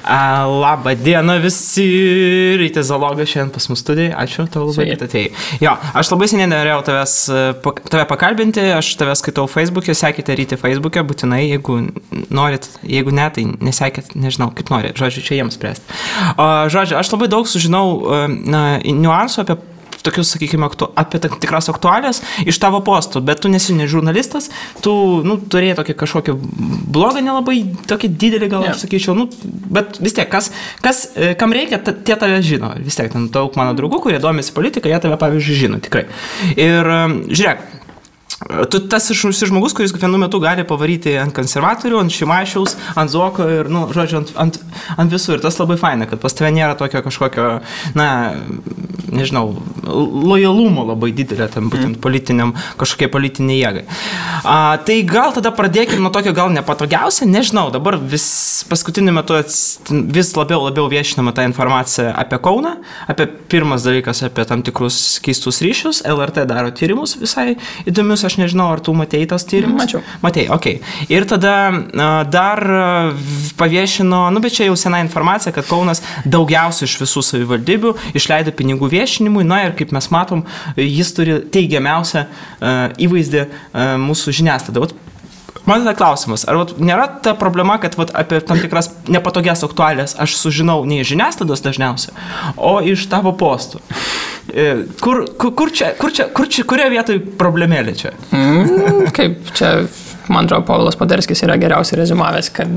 Labą dieną visi, Rytis Zalogas šiandien pas mus studijai, ačiū tau labai, kad atėjai. Jo, aš labai seniai norėjau tave pakalbinti, aš tave skaitau Facebook'e, sekite Ryti Facebook'e, būtinai, jeigu norit, jeigu ne, tai nesekit, nežinau, kaip norit, žodžiu, čia jiems spręsti. Žodžiu, aš labai daug sužinau niuansų apie tokius, sakykime, apie tikras aktualijas iš tavo postų, bet tu nesi ne žurnalistas, tu, turėjai tokį kažkokį blogą, nelabai tokį didelį, gal aš sakyčiau, bet vis tiek, kam reikia, tie tave žino, vis tiek, ten daug mano draugų, kurie domisi politiką, jie tave, pavyzdžiui, žino, tikrai. Ir žiūrėk, tu tas žmogus, kuris vienu metu gali pavaryti ant konservatorių, ant Šimašiaus, ant Zuoko ir, žodžiu, ant visų. Ir tas labai faina, kad pas tave nėra tokio kažkokio, nežinau, lojalumo labai didelė tam būtent kažkokiai politiniai jėgai. Tai gal tada pradėkime nuo tokio gal nepatogiausia, nežinau, dabar paskutiniu metu vis labiau viešinama ta informacija apie Kauną, apie pirmas dalykas apie tam tikrus keistus ryšius, LRT daro tyrimus visai įdomius, aš nežinau, ar tu matei tas tyrimus? Mačiau. Matei, okei. Ir tada dar paviešino, bet čia jau sena informacija, kad Kaunas daugiausiai iš visų savivaldybių išleido pinigų viešinimui, ir kaip mes matom, jis turi teigiamiausią įvaizdį mūsų žiniasklaidą. Man tada klausimas, ar nėra ta problema, kad apie tam tikras nepatogias aktualijas aš sužinau ne iš žiniasklaidos dažniausiai, o iš tavo postų? Kurioje vietoje problemėlė čia? Kaip čia, man atrodo, Povilas Poderskis yra geriausiai rezumavęs, kad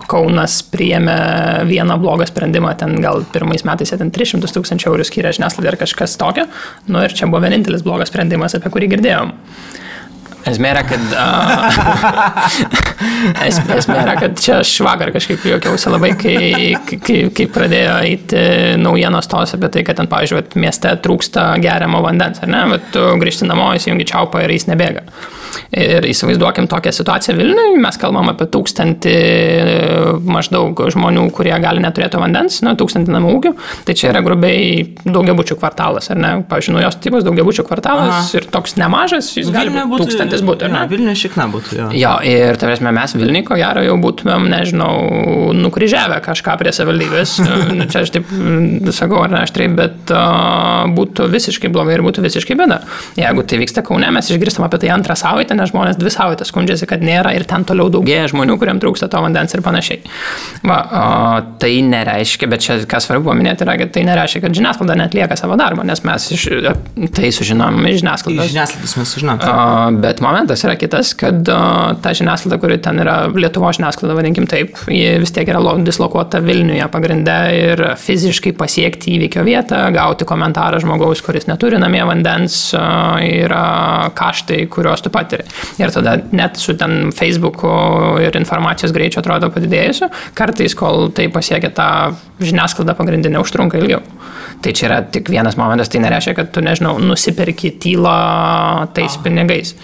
Kaunas priėmė vieną blogą sprendimą, ten gal pirmais metais 300 000 eurų skyrė žiniasklaidai ar kažkas tokio, ir čia buvo vienintelis blogas sprendimas, apie kurį girdėjom. Esmė yra, kad čia aš vakar kažkaip juokiausi labai, kai pradėjo eiti naujienos tos apie tai, kad ten, pavyzdžiui, mieste trūksta geriamo vandens, ar ne? Bet tu grįžti namo, įsijungi čiaupą ir jis nebėga. Ir įsivaizduokim tokią situaciją Vilniuje, mes kalbam apie 1000 maždaug žmonių, kurie gali neturėti vandens, 1000 namų ūkių, tai čia yra grubiai daugiabučių kvartalas, ar ne? Pavyzdžiui, naujos tipos daugiabučių kvartalas ir toks nemažas, jis gali būti 1000 būtų, ar ne? Vilniuje šikna būtų, jo. Jo, ir tarėsime, mes Vilniuje, ko gero, jau būtumėm, nežinau, nukryžiavę kažką prie savivaldybės, čia aš taip sakau, ar ne aštriai, bet būtų visiškai blogai ir būtų visiškai bėda. Jeigu tai vyksta Kaune, mes išgirstam apie tai antrą savaitę, nes žmonės 2 savaitės skundžiasi, kad nėra ir ten toliau daugėja žmonių, kuriems trūksta to vandens ir panašiai. Tai nereiškia, bet čia kas svarbu paminėti yra, kad tai nereiškia, kad žiniasklaida neatlieka savo darbą, nes mes tai sužinom iš žiniasklaidos. Iš žiniasklaidos mes sužinom. Bet momentas yra kitas, kad ta žiniasklaida, kuri ten yra Lietuvos žiniasklaida, vadinkim taip, ji vis tiek yra dislokuota Vilniuje pagrinde ir fiziškai pasiekti įvykio vietą, gauti komentarą žmogaus, kuris neturi namie vandens, yra kaštai, kuriuos tu patiri. Ir tada net su ten Facebook'u ir informacijos greičiu atrodo padidėjusiu, kartais, kol tai pasiekia tą žiniasklaidą pagrindinę, užtrunka ilgiau. Tai čia yra tik vienas momentas, tai nereiškia, kad tu, nežinau, nusiperki tylą tais pinigais.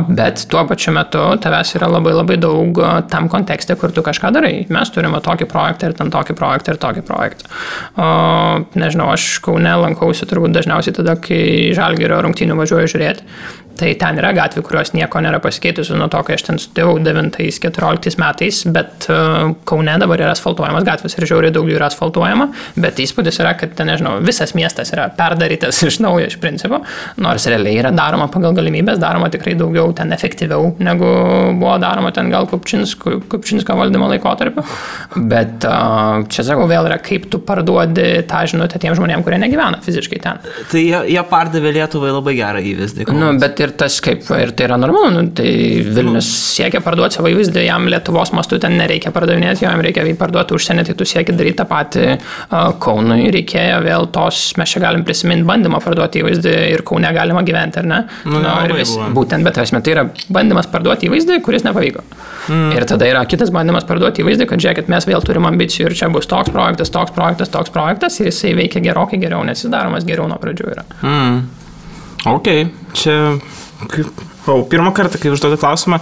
Bet tuo pačiu metu tavęs yra labai labai daug tam kontekste, kur tu kažką darai. Mes turime tokį projektą ir ten tokį projektą ir tokį projektą. Nežinau, aš Kaune lankausi turbūt dažniausiai tada, kai Žalgirio rungtynių važiuoju žiūrėti. Tai ten yra gatvių, kurios nieko nėra pasikeitusi nuo to, kai aš ten studijavau 9-14 metais, bet Kaune dabar yra asfaltuojamas gatvės ir žiauriai daug jų yra asfaltuojama, bet įspūdis yra, kad ten, nežinau, visas miestas yra perdarytas iš naujo iš principo, nors realiai yra daroma pagal galimybės, daroma tikrai daugiau ten efektyviau, negu buvo daroma ten gal Kupčinsko valdymo laikotarpiu, bet čia sakau, vėl yra, kaip tu parduodi tą žinutę tiem žmonėm, kurie negyvena fiziškai ten. Tai jie pardavė Lietuvai labai gerą įvaizdį. Bet ir tas kaip, ir tai yra normalu, tai Vilnius siekia parduoti savo įvaizdį, jam Lietuvos mastu ten nereikia pardavinėti, jam reikia parduoti užsienį, tai tu sieki daryti tą patį Kaunui, reikėjo vėl tos, mes čia galim prisiminti bandymą parduoti įvaizdį ir Kaune galima gyventi, ar ne? Būtent, bet esmė, tai yra bandymas parduoti įvaizdį, kuris nepavyko. Ir tada yra kitas bandymas parduoti įvaizdį, kad žiūrėkit, mes vėl turim ambicijų ir čia bus toks projektas ir jisai veikia gerokai geriau, nes jis daromas geriau nuo pradžių yra. Ok, čia pirmą kartą, kai užduodu klausimą,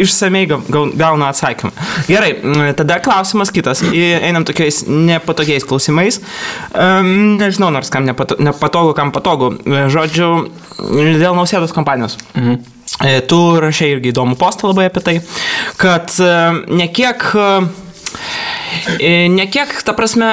išsamei gaunu atsakymą. Gerai, tada klausimas kitas. Einam tokiais nepatogiais klausimais. Nežinau, nors kam nepatogu, kam patogu. Žodžiu, dėl Nausėdos kampanijos. Tu rašei irgi įdomų postą labai apie tai, kad Ne kiek, ta prasme,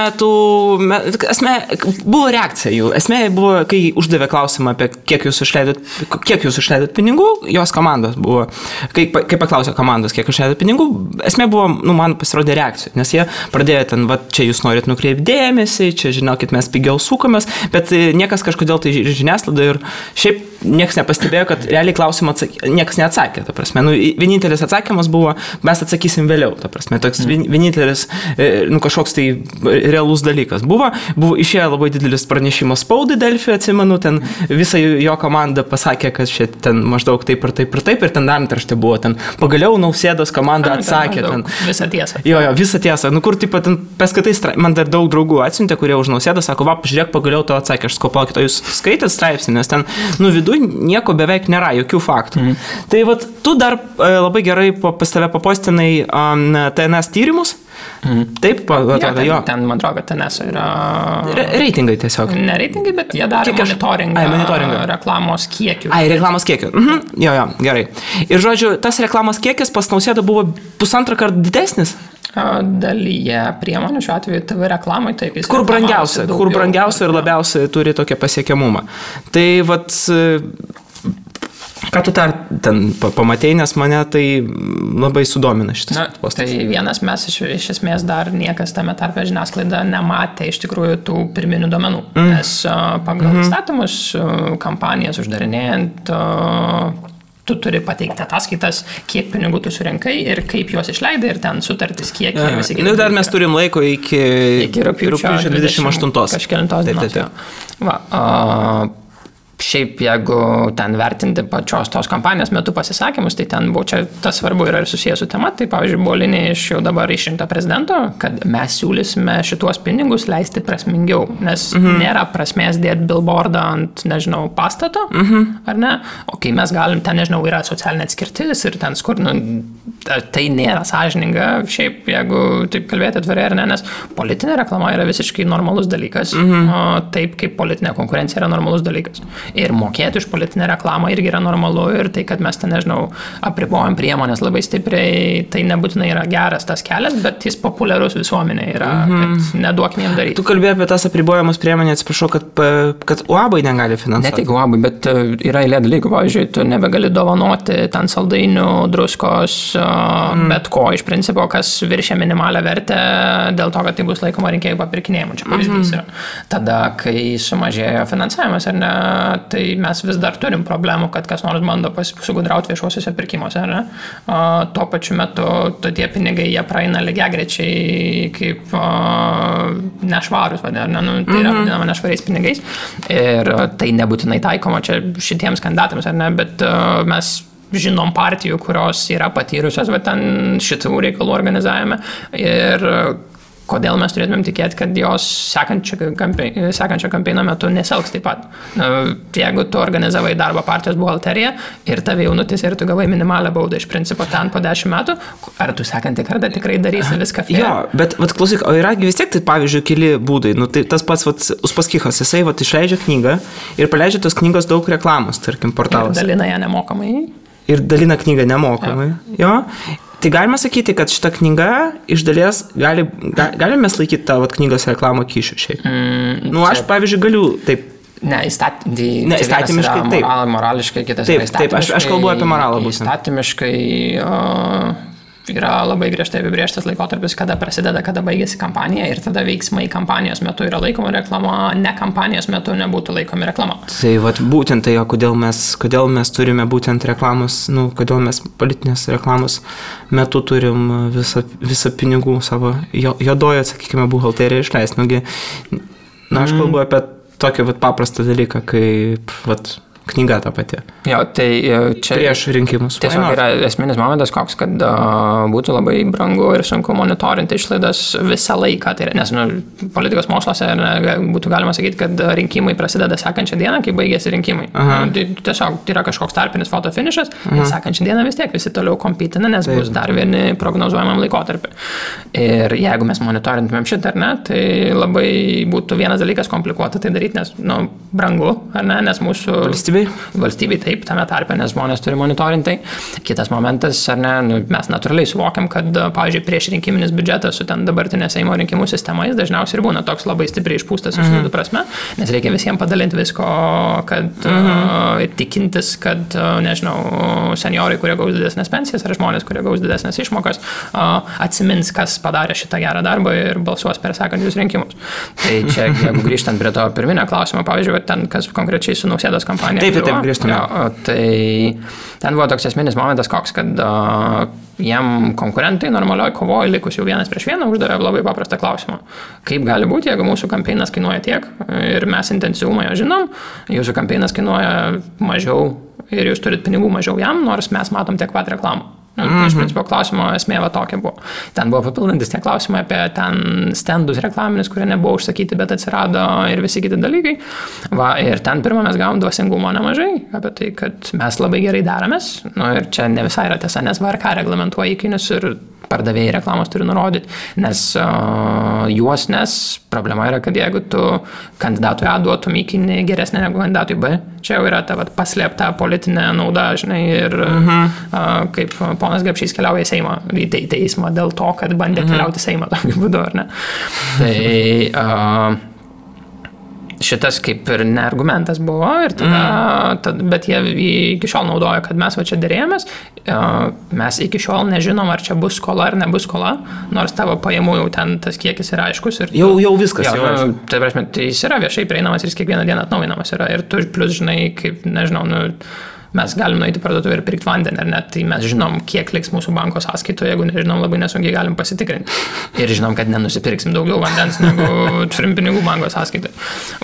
buvo reakcija jų. Esmė buvo, kai uždavė klausimą apie kiek jūs išleidot pinigų, jos komandos buvo. Kai paklausė komandos, kiek išleidot pinigų, esmė buvo, man pasirodė reakcija. Nes jie pradėjo ten, čia jūs norit nukreipti dėmesį, čia žinokit, mes pigiau sukomės, bet niekas kažkodėl tai žiniasklaida ir šiaip niekas nepastebėjo, kad realiai klausimą niekas neatsakė. Ta prasme, vienintelis atsakymas buvo, mes atsakysim vėliau. Ta prasme, toks vienintelis kažkoks tai realus dalykas. Buvo išėjo labai didelis pranešimas spaudai Delfi, atsimenu, ten visa jo komanda pasakė, kad čia ten maždaug taip ir ten antraštė buvo, ten pagaliau Nausėdos komanda atsakė. Visą tiesą. Jo, visą tiesą. Kur taip pat paskatai, man dar daug draugų atsiuntė, kurie už Nausėdą sako, pažiūrėk, pagaliau to atsakė, aš sakau, palaukit, o jūs skaitėt straipsnį, nes ten, viduj nieko beveik nėra, jokių faktų. Tai tu dar labai gerai pas tave papostinai TNS tyrimus. Taip, atrodo, jo. Ten, man atrodo, kad TNS yra... Reitingai tiesiog. Ne reitingai, bet jie daro monitoringą reklamos kiekių. Reklamos kiekių. Jo, gerai. Ir žodžiu, tas reklamos kiekis pas Nausėdą buvo 1,5 karto didesnis. Dalyje priemonių, šiuo atveju TV reklamai, taip jis... Kur brangiausia ir labiausiai turi tokią pasiekiamumą. Tai ką tu ten pamatei, nes mane tai labai sudomina šitas postas. Tai vienas mes iš esmės dar niekas tame tarpe žiniasklaida nematė iš tikrųjų tų pirminių duomenų. Nes pagal įstatymus kampanijas uždarinėjant tu turi pateikti ataskaitas, kiek pinigų tu surinkai ir kaip juos išleidai ir ten sutartis, kiek visi kiti. Dar mes turim laiko iki rugpjūčio 28. Kažkelintos dienos. Šiaip, jeigu ten vertinti pačios tos kampanijos metu pasisakymus, tai ten buvo, čia tas svarbu yra ir susijęs su tema, tai pavyzdžiui, buvo linija iš jau dabar išrinkto prezidento, kad mes siūlysime šituos pinigus leisti prasmingiau, nes nėra prasmės dėti billboardą ant, nežinau, pastato, ar ne, o kai mes galim, ten, nežinau, yra socialinė atskirtis ir ten skur, tai nėra sąžininga, šiaip, jeigu taip kalbėti atvirai ar ne, nes politinė reklama yra visiškai normalus dalykas, taip kaip politinė konkurencija yra normalus dalykas. Ir mokėti už politinę reklamą irgi yra normalu ir tai, kad mes ten, nežinau, apribojam priemonės labai stipriai, tai nebūtinai yra geras tas kelias, bet jis populiarus visuomenė yra, kad neduokim jiem daryti. Tu kalbėjai apie tas apribojamus priemonės, atsiprašau, kad UAB-ai negali finansuoti. Ne tik UAB-ai, bet yra eilė dalykų, pavyzdžiui, tu nebegali dovanoti ten saldainių, druskos, bet ko iš principo, kas viršia minimalią vertę dėl to, kad tai bus laikoma rinkėjų papirkinėjimu. Čia pavyzdys yra. Tada, kai sumažėjo finansavimas, ar ne, tai mes vis dar turim problemų, kad kas nors bando sugudrauti viešuosiuose pirkimuose, ar ne? Tuo pačiu metu tie pinigai, jie praeina lygiagrečiai kaip nešvarus, ar ne? Tai yra vadinama nešvariais pinigais ir tai nebūtinai taikoma čia šitiems kandidatams, ar ne? Bet mes žinom partijų, kurios yra patyrusios ten šitų reikalų organizavime ir kodėl mes turėtumėm tikėti, kad jos sekančio kampeino metu neselgs taip pat. Jeigu tu organizavai darbą partijos buhalteriją ir tave jaunutis ir tu gavai minimalią baudą iš principo ten po 10 metų, ar tu sekantį kartą tikrai darysi viską fair? Jo, bet klausyk, o yra vis tiek tai pavyzdžiui keli būdai. Tai tas pats Uspaskichas, jisai išleidžia knygą ir paleidžia tos knygos daug reklamos, tarkim, portalas. Ir dalina ją nemokamai. Ir dalina knygą nemokamai. Jo. Tai galima sakyti, kad šita knyga iš dalies galime mes laikyti tą knygos reklamą kyšių šiaip. Aš, pavyzdžiui, galiu taip. Įstatymiškai taip. Morališkai kitas yra įstatymiškai. Taip, aš kalbu apie moralą būtent. Įstatymiškai yra labai griežtai apibrėžtas laikotarpis, kada prasideda, kada baigėsi kampanija ir tada veiksmai kampanijos metu yra laikoma reklama, ne kampanijos metu nebūtų laikomi reklama. Tai būtent tai, kodėl mes turime būtent reklamos, kodėl mes politinės reklamos metu turim visą pinigų savo juodojo, sakykime, buhalteriją išleisti. Aš kalbu apie tokį paprastą dalyką, kaip knyga ta pati. Jo, tai čia prieš rinkimus. Tiesiog yra esminis momentas koks, kad būtų labai brangu ir sunku monitorinti išlaidas visą laiką. Tai, nes politikos moksluose būtų galima sakyti, kad rinkimai prasideda sekančią dieną, kai baigėsi rinkimai. Tiesiog tai yra kažkoks tarpinis fotofinišas ir sekančią dieną vis tiek visi toliau kompitina, nes bus dar vieni prognozuojamam laikotarpį. Ir jeigu mes monitorintumėm šitą, ar ne, tai labai būtų vienas dalykas komplikuota tai daryti, nes brangu, ar ne, nes mūsų valstybei? Valstybei taip, tame tarpe, nes žmonės turi monitorinti. Kitas momentas, ar ne, mes natūraliai suvokiam, kad, pavyzdžiui, prieš rinkiminis biudžetas su ten dabartinė Seimo rinkimų sistema, jis dažniausiai ir būna toks labai stipriai išpūstas išlaidų prasme, nes reikia visiems padalinti visko, kad tikintis, kad, nežinau, seniorai, kurie gaus didesnės pensijas, ar žmonės, kurie gaus didesnės išmokas, atsimins, kas padarė šitą gerą darbą ir balsuos per sekančius rinkimus. Tai čia, jeigu grįžtant prie to pirminio klausimo, pavyzdžiui, ten, kas konkrečiai su Nausėdos kampanija. Taip, grįžtame. Tai ten buvo toks esminis momentas koks, kad jiem konkurentai normalioj kovoje likus jau 1-1 uždavė labai paprastą klausimą. Kaip gali būti, jeigu mūsų kampeinas kainuoja tiek ir mes intensyvumą jo žinom, jūsų kampeinas kainuoja mažiau ir jūs turit pinigų mažiau jam, nors mes matom tiek pat reklamų. Iš principo klausimo esmė va tokia buvo. Ten buvo papildantis tie klausimai apie ten stendus reklaminis, kurie nebuvo užsakyti, bet atsirado ir visi kiti dalykai. Va, ir ten pirmą mes gavom dvasingumo nemažai, apie tai, kad mes labai gerai deramės. Ir čia ne visai yra tiesa, nes VRK reglamentuoja įkainius ir pardavėjai reklamos turi nurodyti, nes nes problema yra, kad jeigu tu kandidatui A duotum įkainį geresnį negu kandidatui B, čia jau yra ta paslėpta politinė nauda, žinai, ir kaip ponas Gapšys keliauja į Seimą, į teismą dėl to, kad bandė keliauti į Seimą tokiu būdu, ar ne? Tai šitas kaip ir ne argumentas buvo, ir tada, bet jie iki šiol naudoja, kad mes va čia derėjomės, mes iki šiol nežinom, ar čia bus skola ar nebus skola, nors tavo pajamų jau ten tas kiekis yra aiškus. Ir jau viskas. Tai prasme, tai jis yra viešai prieinamas ir jis kiekvieną dieną atnaujinamas yra. Ir tu plus, žinai, kaip, nežinau, mes galim nueiti parduotuvę ir pirkti vandenį, ar net, tai mes žinom, kiek liks mūsų banko sąskaitoje, jeigu nežinom, labai nesunkiai galim pasitikrinti. Ir žinom, kad nenusipirksim daugiau vandens, negu turim pinigų banko sąskaitoje.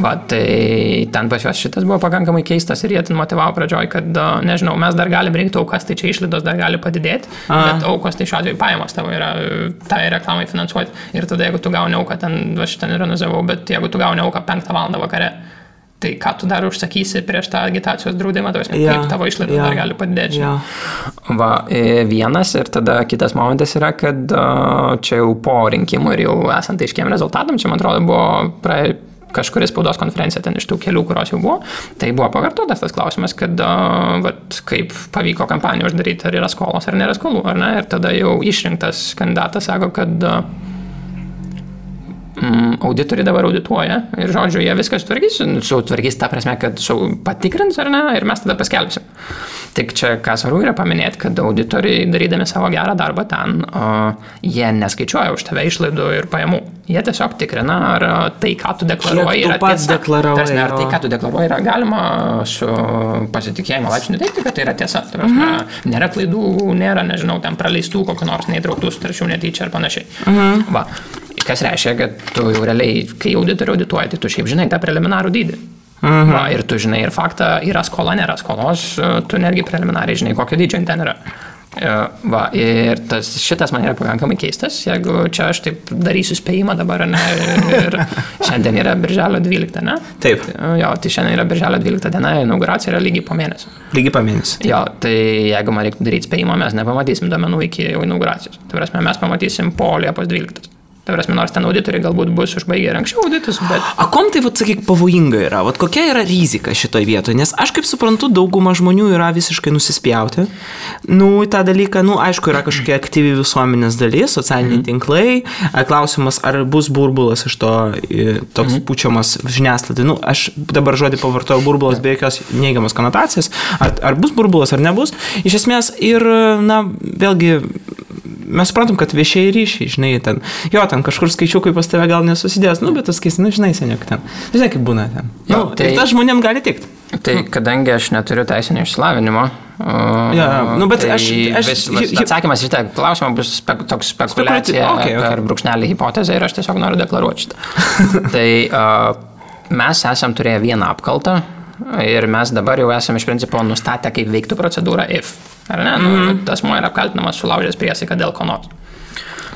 Va, tai ten pas juos šitas buvo pakankamai keistas ir jie ten motivavo pradžioj, kad, nežinau, mes dar galim rinkti aukas, tai čia išlaidos dar gali padidėti, bet aukos tai šiuo atveju pajamos tavo yra tai reklamai finansuoti. Ir tada, jeigu tu gauni auką, ten, aš ten ironizavau, bet jeigu tu gauni auką 5 valandą vakare, tai ką tu dar užsakysi prieš tą agitacijos draudimą, kaip tavo išlaidos dar gali padidėti. Va, vienas ir tada kitas momentas yra, kad čia jau po rinkimų ir jau esant aiškiem rezultatam, čia man atrodo buvo kažkuris spaudos konferencija ten iš tų kelių, kurios jau buvo, tai buvo pakartotas tas klausimas, kad kaip pavyko kampaniją uždaryti, ar yra skolos ar nėra skolų, ar ne, ir tada jau išrinktas kandidatas sako, kad auditoriai dabar audituoja ir, žodžiu, jie viskas sutvarkys ta prasme, kad patikrins, ar ne, ir mes tada paskelbsim. Tik čia, ką svarbu yra paminėti, kad auditoriai, darydami savo gerą darbą ten, jie neskaičiuoja už tave išlaidų ir pajamų. Jie tiesiog tikrina, ar tai, ką tu deklaruoji, yra tiesa. Ar tai, ką tu deklaruoji, yra galima su pasitikėjimo laipsniu teikti, kad tai yra tiesa. Tai prasme, nėra klaidų, nėra, nežinau, ten praleistų kokio nors neįtrauktų sutarčių netyčia ar panašiai. Va. Kas reiškia, kad tu jau realiai, kai auditoriai audituoja, tai tu šiaip žinai tą preliminarų dydį. Va, ir tu žinai ir faktą, yra skola, nėra skolos, tu netgi preliminariai žinai, kokio dydžio ten yra. Va, ir šitas man yra pakankamai keistas, jeigu čia aš taip darysiu spėjimą dabar, ne, ir šiandien yra birželio 12, ne? Taip. Jo, tai šiandien yra birželio 12 diena, inauguracija yra lygiai po mėnesio. Lygiai po mėnesio. Jo, tai jeigu man reiktų daryti spėjimą, mes nepamatysim duomenų iki inauguracijos. Tai prasme, mes pamatysim po Liepos 12. Tai prasme, nors ten auditoriai galbūt bus užbaigę ir anksčiau auditus, bet... A kom tai, sakyk, pavojinga yra? Kokia yra rizika šitoj vietoje? Nes aš kaip suprantu, dauguma žmonių yra visiškai nusispjauti. Tą dalyką, aišku, yra kažkokia aktyvi visuomenės dalis, socialiniai tinklai. Klausimas, ar bus burbulas iš to toks pučiamas žiniasklaidai. Aš dabar žodį pavartojau burbulas be jokios neigiamos konotacijos. Ar bus burbulas, ar nebus. Iš esmės ir, vėlgi... Mes suprantam, kad viešieji ryšiai, žinai, ten kažkur skaičiukai pas tave gal nesusidės, bet tas keis, žinai, seniok ten. Žinai, kaip būna ten. Tai tas žmonėm gali tikti. Tai kadangi aš neturiu teisinio išsilavinimo, bet atsakymas į šitą klausimą bus toks spekulacija per brūkšnelį hipotezę ir aš tiesiog noriu deklaruoti šitą. Tai mes esam turėję vieną apkaltą ir mes dabar jau esam iš principo nustatę, kaip veiktų procedūra if. Ar ne? Asmuo yra apkaltinamas sulaužęs priesaiką dėl ko nors.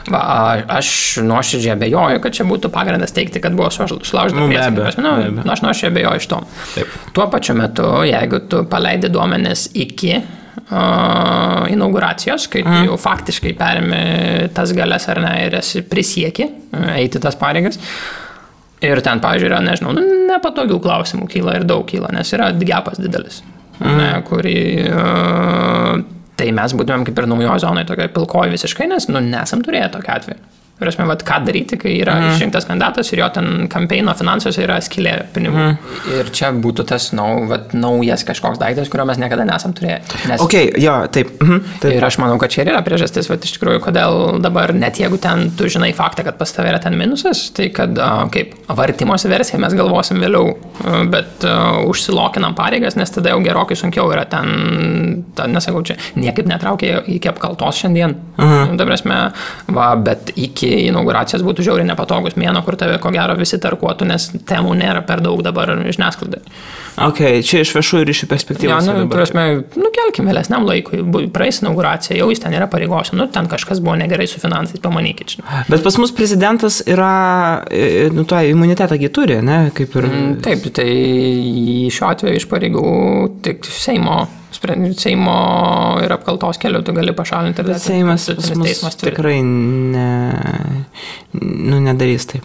Aš nuoširdžiai abejoju, kad čia būtų pagrindas teikti, kad buvo sulaužyta priesaika. Aš nuoširdžiai abejoju iš to. Taip. Tuo pačiu metu, jeigu tu paleidi duomenis iki inauguracijos, kai tu jau faktiškai perimi tas galias ar ne ir esi prisieki eiti tas pareigas, Ir ten, pavyzdžiui, yra, nežinau, nepatogių klausimų kyla ir daug kyla, nes yra gepas didelis, kurį... Tai mes būtumėm kaip ir naujoje zonoje, tokioje pilkoje visiškai, nes, nesam turėję tokio atveju. Prasme, ką daryti, kai yra išrinktas kandidatas ir jo ten kampeino finansuose yra skylė pinigų. Ir čia būtų tas naujas kažkoks daiktas, kurio mes niekada nesam turėję. Nes... Taip. Ir aš manau, kad čia ir yra priežastis, iš tikrųjų, kodėl dabar, net jeigu ten tu žinai faktą, kad pas tave yra ten minusas, tai kad kaip vartimosi versija mes galvosim vėliau, bet užsilokinam pareigas, nes tada jau gerokai sunkiau yra ten, nesakau, čia niekaip netraukia iki apkaltos šiandien. Bet iki inauguracijos būtų žiauriai nepatogus mėno, kur tave ko gero visi tarkuotų, nes temų nėra per daug dabar žiniasklaidai. Čia iš viešųjų ryšių perspektyvos. Kelkim vėlesniam laikui, praeis inauguracija, jau jis ten yra pareigos, ten kažkas buvo negerai su finansais, pamanykit. Bet pas mus prezidentas yra, tą imunitetą turi, ne? Kaip ir... Taip, tai šiuo atveju iš pareigų tik Seimo ir apkaltos keliu tu gali pašalinti. Bet Seimas pas mus tikrai nedarys taip.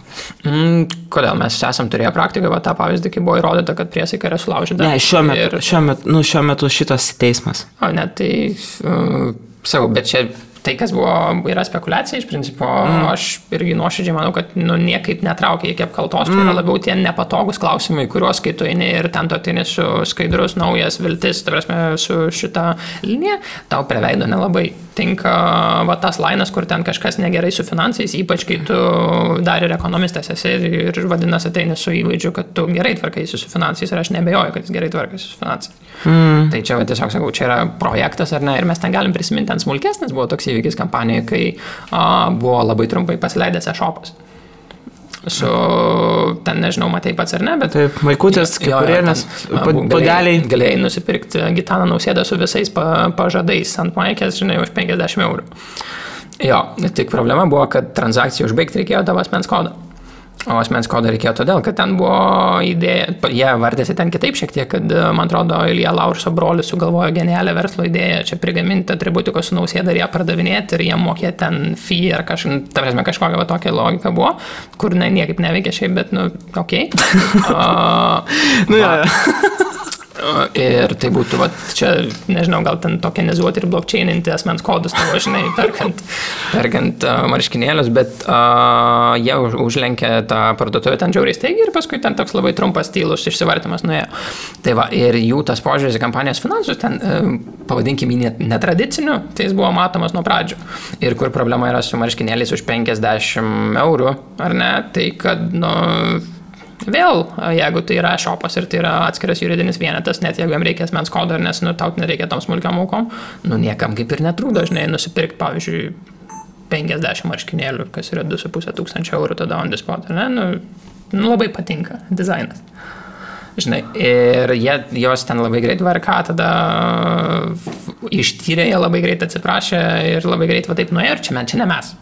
Kodėl? Mes esam turėję praktiką, tą pavyzdį, kai buvo įrodyta, kad priesaika yra sulaužyta. Ne, šiuo metu šitas teismas. Tai sakau, bet čia tai, kas yra spekulacija, iš principo, aš irgi nuoširdžiai manau, kad niekaip netraukia iki apkaltos, čia yra labiau tie nepatogus klausimai, kuriuos kai tu eini ir ten tu ateini su skaidrus, naujas viltis, su šitą liniją, tau prie veido nelabai tinka tas lainas, kur ten kažkas negerai su finansais, ypač kai tu dar ir ekonomistas esi ir vadinasi ateini su įvaizdžiu, kad tu gerai tvarkaisi su finansais ir aš nebejoju, kad jis gerai tvarkaisi su finansais. Tai čia tiesiog sakau, čia yra projektas ar ne, ir mes ten galim prisiminti, ten smulkesnis buvo toks įvykis kampanijoje, kai buvo labai trumpai pasileidęs e-shopas. Ten nežinau, matai pats ar ne, bet... Taip, maikutės, kikurėlės, podeliai. Galėjai nusipirkti Gitaną Nausėdą su visais pažadais ant maikės, žinai, už 50 eurų. Tik problema buvo, kad transakciją užbaigti reikėjo tavo asmens kodą. O asmens kodą reikėjo todėl, kad ten buvo idėja, jie vardėsi ten kitaip šiek tiek, kad, man atrodo, Ilja Laurso brolis sugalvojo genialią verslo idėją, čia prigaminti atributikos su Nausėda ir ją pardavinėti ir jie mokėti ten fee ar kažkokia tokia logika buvo, kur niekaip neveikia šiaip, bet, okei. Ir tai būtų, čia, nežinau, gal ten tokenizuoti ir blockchaininti asmens kodus, tavo, žinai, perkant marškinėlius, bet jie užlenkė tą parduotuvę ten žiauriai staigiai ir paskui ten toks labai trumpas tylus išsivartymas nuėjo. Tai ir jų tas požiūris į kampanijos finansus ten, pavadinkim jį netradiciniu, tai jis buvo matomas nuo pradžių. Ir kur problema yra su marškinėliais už 50 eurų, ar ne, tai kad, vėl, jeigu tai yra shopas ir tai yra atskiras juridinis vienetas, net jeigu jam reikia asmens kodo, nes tau nereikia tam smulkiam aukom, niekam kaip ir netrūdo, žinai, nusipirkti, pavyzdžiui, 50 marškinėlių, kas yra 2500 eurų tada on the spot, ne? Labai patinka dizainas. Žinai, ir jos ten labai greit VRK tada ištyrė, jie labai greit atsiprašė ir labai greit taip nuėjo, ir čia ne mes.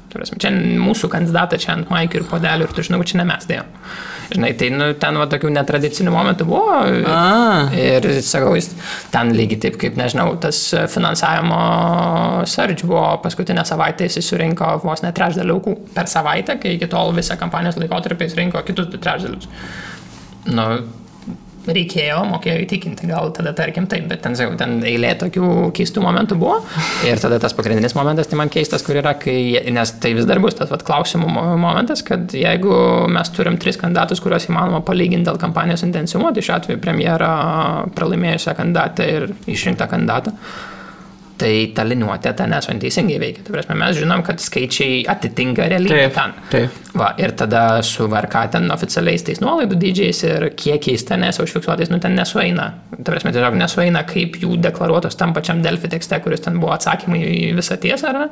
Čia mūsų kandidatą čia ant maikių ir podelių ir tu žinau, čia ne mes dėjom. Žinai, tai ten tokių netradicinių momentų buvo ir, sakau, ten lygiai taip, kaip, nežinau, tas finansavimo surge buvo paskutinę savaitę, jis surinko vos ne trečdalį aukų per savaitę, kai iki tol visą kampanijos laikotarpį jis rinko kitus 2 trečdalius. Reikėjo, mokėjo įtikinti, gal tada tarkim taip, bet ten eilė tokių keistų momentų buvo ir tada tas pagrindinis momentas, tai man keistas, kur yra, nes tai vis dar bus tas klausimų momentas, kad jeigu mes turim 3 kandidatus, kuriuos įmanoma palyginti dėl kampanijos intensyvumo, tai šiuo atveju premjerą pralaimėjusią kandidatą ir išrinktą kandidatą, tai ta liniuotė ten teisingai veikia. Tai prasme, mes žinom, kad skaičiai atitinka realybę ten. Taip. Ir tada su VRK ten oficialiais tais nuolaidų dydžiais ir kiekiais ten užfiksuotais, ten nesueina. Tai prasme, tiesiog nesueina, kaip jų deklaruotos tam pačiam Delfi tekste, kuris ten buvo atsakymai į visą tiesą, ar ne?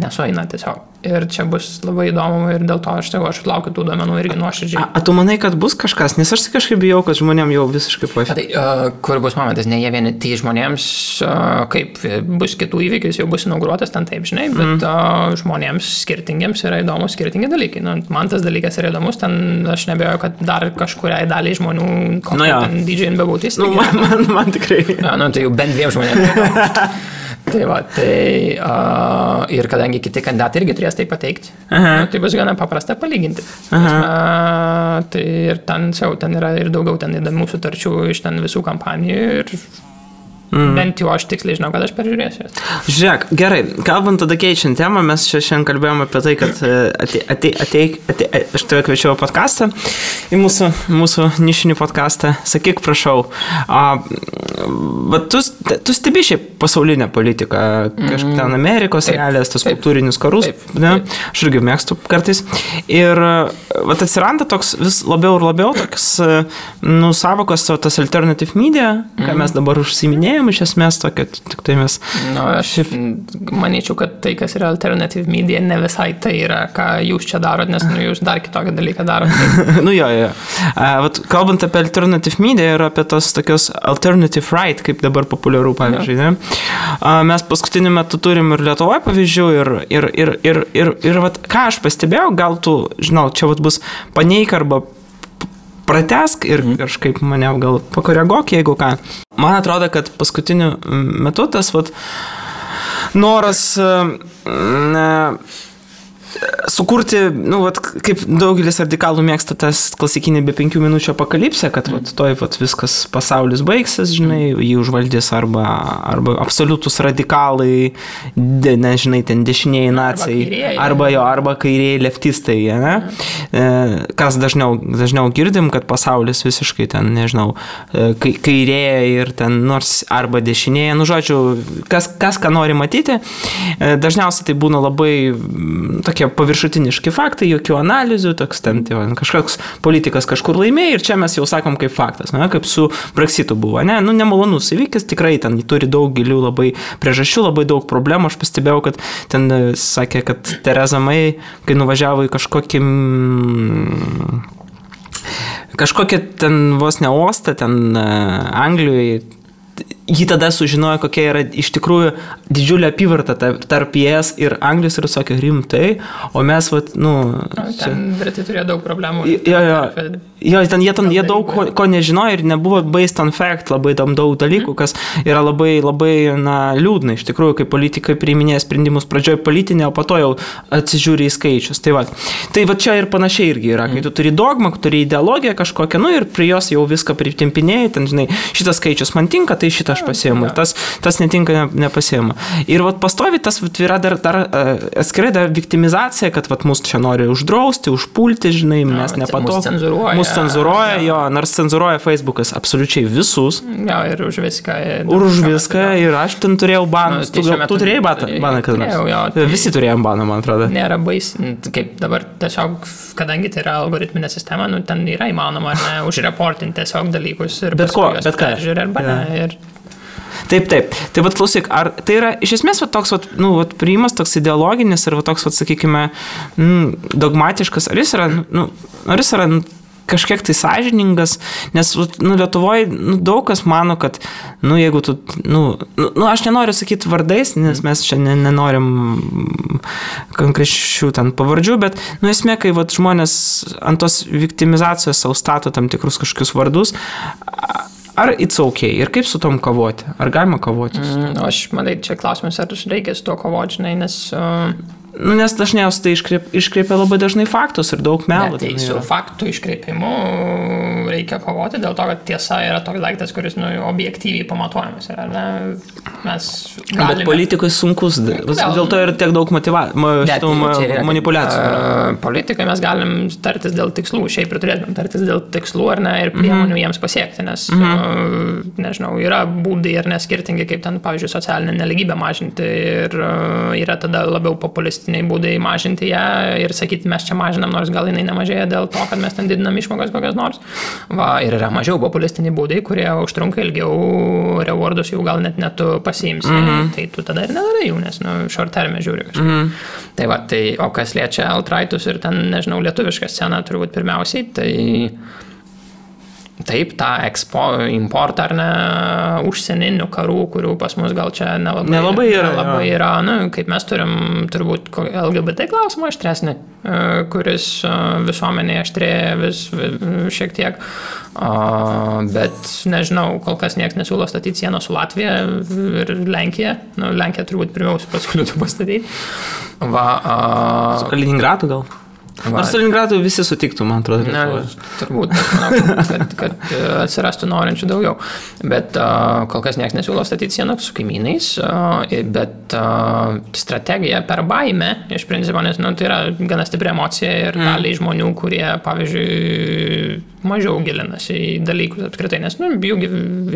Nesueina tiesiog. Ir čia bus labai įdomu ir dėl to aš laukiu tų duomenų irgi nuoširdžiai. Tu manai, kad bus kažkas? Nes aš kažkaip bijau, kad žmonėm jau visiškai Tai kur bus momentas? Ne jie vieni, tai žmonėms, kaip bus kitų įvykius, jau bus inauguruotas ten taip, žinai, bet žmonėms skirtingiems yra įdomus skirtingi dalykai. Man tas dalykas yra įdomus, ten aš nebejoju, kad dar kažkuriai daliai žmonių ten didžiai nebebūtis. Man tikrai. Tai jau bent 2 žmonėms. Ir kadangi kiti kandidatai irgi turės tai pateikti, tai bus gana paprasta palyginti. Tai ir ten yra ir daugiau ten įdomių sutarčių iš ten visų kampanijų ir bent jau aš tiksliai žinau, kad aš peržiūrėsiu. Žiūrėk, gerai, kalbant tada keičiant temą, mes čia šiandien kalbėjome apie tai, kad aš tave kviečiau podcastą, į mūsų nišinį podcastą. Sakyk, prašau, tu stebi šiaip pasaulinę politiką, kažkaip ten Amerikos realijas, tos kultūrinius karus, ne? Aš irgi mėgstu kartais. Ir atsiranda toks vis labiau ir labiau toks, savokos, tas alternative media, ką mes dabar užsiminėjome, iš esmės tokia, tik tai mes... Aš manyčiau, kad tai, kas yra alternative media, ne visai tai yra, ką jūs čia darot, nes jūs dar kitokį dalyką darot. Jo. Kalbant apie alternative media ir apie tos tokios alternative right, kaip dabar populiaru, pavyzdžiui, ne? Mes paskutiniu metu turim ir Lietuvoje pavyzdžių ir ką aš pastebėjau, gal tu, žinau, čia bus paneik arba pratesk ir kažkaip mane gal pakoreguok, jeigu ką. Man atrodo, kad paskutiniu metu tas noras sukurti, kaip daugelis radikalų mėgsta tas klasikinį be 5 minučių apokalipsę, kad viskas pasaulis baigsis, žinai, jį užvaldys arba absoliutus radikalai, nežinai, ten dešiniai nacijai, arba kairieji leftistai, ne? Kas dažniau girdim, kad pasaulis visiškai ten, nežinau, kairėja ir ten nors arba dešinėje, žodžiu, kas ką nori matyti, dažniausiai tai būna labai tokie paviršutiniški faktai, jokių analizių, toks ten, kažkoks politikas kažkur laimėjo ir čia mes jau sakom kaip faktas, ne, kaip su Brexitu buvo, ne, nemalonus įvykis, tikrai ten turi daug gilių labai priežasčių, labai daug problemų, aš pastebėjau, kad ten sakė, kad Theresa May, kai nuvažiavo į kažkokią ten vos ne uostą, ten Anglijoje, jį tada sužinojo, kokia yra iš tikrųjų didžiulė apyvarta tarp ES ir Anglijos ir sakė rimtai, o mes, ten Britai turėjo daug problemų. Jie daug ko nežinojo ir nebuvo based on fact, labai daug dalykų, kas yra labai, labai liūdna. Iš tikrųjų, kai politikai priiminėja sprendimus pradžioje politinė, o po to jau atsižiūri į skaičius. Tai čia ir panašiai irgi yra, kai tu turi dogmą, turi ideologiją kažkokią, ir prie jos jau viską pritimpinėjai, ten, žinai, šitas skaičius man tinka, tai šitą aš pasiėmu, tas netinka, nepasiėmu. Ir pastovi tas yra dar atskirai dar viktimizacija, kad mus čia nori uždrausti, užpulti, žinai, mes nepatogu. Mus cenzūruoja, jo, nors cenzūruoja Facebookas absoliučiai visus. Jo, ir už viską. Už viską, ir aš ten turėjau baną. Tu turėjai baną, kad nors? Visi turėjom baną, man atrodo. Nėra baisi, kaip dabar tiesiog, kadangi tai yra algoritminė sistema, ten yra įmanoma, ar ne, užreportinti tiesiog dalykus ir paskui juos peržiūrė arba ne. Taip. Tai klausyk, ar tai yra iš esmės toks priimas toks ideologinis ir toks, sakykime, dogmatiškas, ar jis yra kažkiek tai sąžiningas, nes Lietuvoje daug kas mano, kad jeigu tu, aš nenoriu sakyti vardais, nes mes čia nenorim konkrečių ten pavardžių, bet esmė, kai žmonės ant tos viktimizacijos savo stato tam tikrus kažkokius vardus, ar it's okay? Ir kaip su tom kovoti? Ar galima kovoti? Aš manai, čia klausimas, ar reikia su to kovoti, žinai, nes... Nes dažniausiai tai iškreipia labai dažnai faktus ir daug melų. Tai su faktų iškreipimu reikia kovoti, dėl to, kad tiesa yra toks daiktas, kuris objektyviai pamatuojamas. Mes galime... Bet politikui sunkus, dėl to ir tiek daug manipuliacijų. Politikai mes galim tartis dėl tikslų, šiaip ir turėtume tartis dėl tikslų ar ne, ir priemonių jiems pasiekti, nes, nežinau, yra būdai ar neskirtingi, kaip ten, pavyzdžiui, socialinę neligybę mažinti ir yra tada labiau populistiniai būdai mažinti ją ir sakyti, mes čia mažinam, nors gal jinai nemažėja dėl to, kad mes ten didinam išmokas kokias nors. Ir yra mažiau populistiniai būdai, kurie užtrunka ilgiau, rewardus jau gal net tu pasiimsi, tai tu tada ir nedarai jų, nes short term žiūri kažkaip. O kas liečia alt-rightus ir ten, nežinau, lietuvišką sceną turbūt pirmiausiai, Taip, tą importą ar ne užsieninių karų, kurių pas mus gal čia nelabai yra. Kaip mes turim turbūt LGBT klausimą aštresnį, kuris visuomenėje aštrėja vis šiek tiek. Bet nežinau, kol kas niekas nesiūlo statyti sieną su Latvija ir Lenkija. Lenkija turbūt pirmiausia pasiūlytų pastatyti. Su Kaliningradu gal? Nors Kaliningradu visi sutiktų, man atrodo. Turbūt, kad atsirastų norinčių daugiau. Bet kol kas niekas nesiūlo statyti sieną su kaimynais, bet strategija per baimę, iš principo, nes tai yra gana stipri emocija ir daliai žmonių, kurie, pavyzdžiui, mažiau gilinasi į dalykus apskritai, nes jų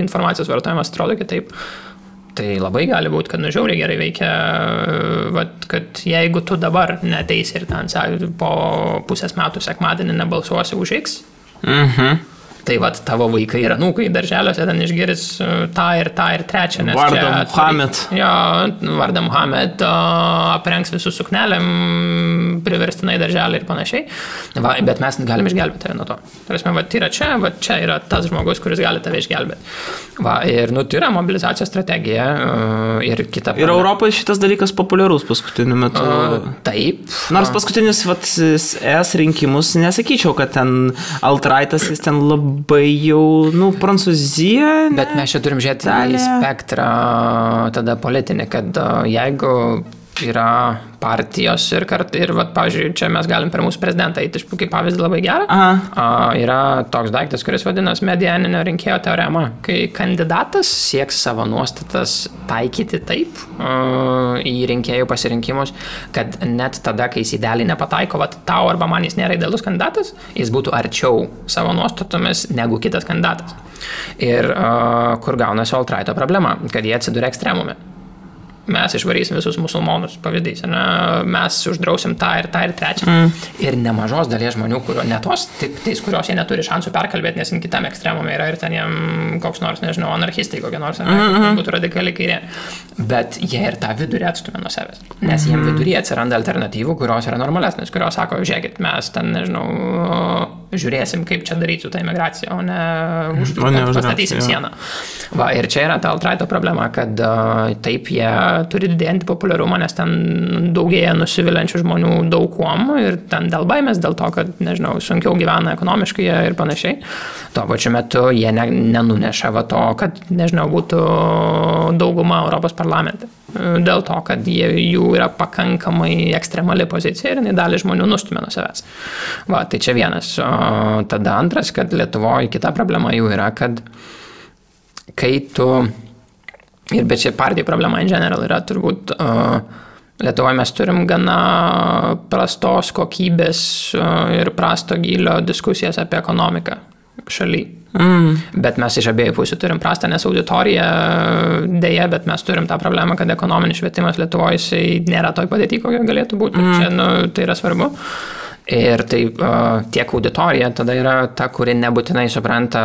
informacijos vartojimas atrodo kitaip. Tai labai gali būti, kad žiauriai gerai veikia, kad jeigu tu dabar neteisi ir ten po pusės metų sekmadienį nebalsuosi už X, tai tavo vaikai ir anūkai darželiuose ten išgirs tą ir trečią. Vardą Muhamed. Vardą Muhamed, aprengs visus suknelėm, priverstinai darželį ir panašiai. Bet mes galim išgelbėti tave nuo to. Tai yra čia yra tas žmogus, kuris gali tave išgelbėti. Ir tai yra mobilizacijos strategija ir kita. Ir Europoje šitas dalykas populiarus paskutiniu metu. Taip. Nors paskutinius ES rinkimus nesakyčiau, kad ten alt-rightas jis ten labai jau, Prancūzija. Bet mes čia turim žiūrėti į spektrą tada politinį, kad jeigu yra partijos ir pavyzdžiui, čia mes galim per mūsų prezidentą eiti kaip pavyzdį labai gerą. Yra toks daiktas, kuris vadinas medianinio rinkėjo teorema, kai kandidatas sieks savo nuostatas taikyti taip į rinkėjų pasirinkimus, kad net tada, kai jis idealiai nepataiko, tau arba man jis nėra idealus kandidatas, jis būtų arčiau savo nuostatomis negu kitas kandidatas. Ir kur gaunasi alt-righto problema, kad jie atsiduria ekstremume. Mes išvarysim visus musulmonus, pavyzdys, mes uždrausim tą ir trečią. Ir nemažos dalies žmonių, kurios jie neturi šansų perkalbėti, nes kitam ekstremume yra ir ten jiem koks nors, nežinau, anarchistai kokie nors, būtų radikaliai kairė. Bet jie ir tą vidurį atstumė nuo savęs. Nes jiem vidurį atsiranda alternatyvų, kurios yra normalesnės, kurios sako, žiūrėkit, mes ten, nežinau, žiūrėsim, kaip čia daryti su ta imigracija, o ne pastatysim sieną. Ir čia yra ta alt-righto problema, kad taip jie turi didėjantį populiarumą, nes ten daugėja nusivilančių žmonių daug kuom ir ten dėl baimės, dėl to, kad, nežinau, sunkiau gyvena ekonomiškai ir panašiai. Tuo pačiu metu jie nenuneša to, kad, nežinau, būtų dauguma Europos parlamente. Dėl to, kad jų yra pakankamai ekstremali pozicija ir dalį žmonių nustumė nuo savęs. Tai čia vienas. Tada antras, kad Lietuvoje kita problema jų yra, kad kai tu bet čia partijų problema in general yra turbūt Lietuvoje mes turim gana prastos kokybės ir prasto gylio diskusijas apie ekonomiką šaly. Bet mes iš abiejų pusių turim prastą, nes auditorija dėja, bet mes turim tą problemą, kad ekonominis švietimas Lietuvoje nėra toj padėty, kokia galėtų būti. Ir čia tai yra svarbu. Ir tai tiek auditorija tada yra ta, kuri nebūtinai supranta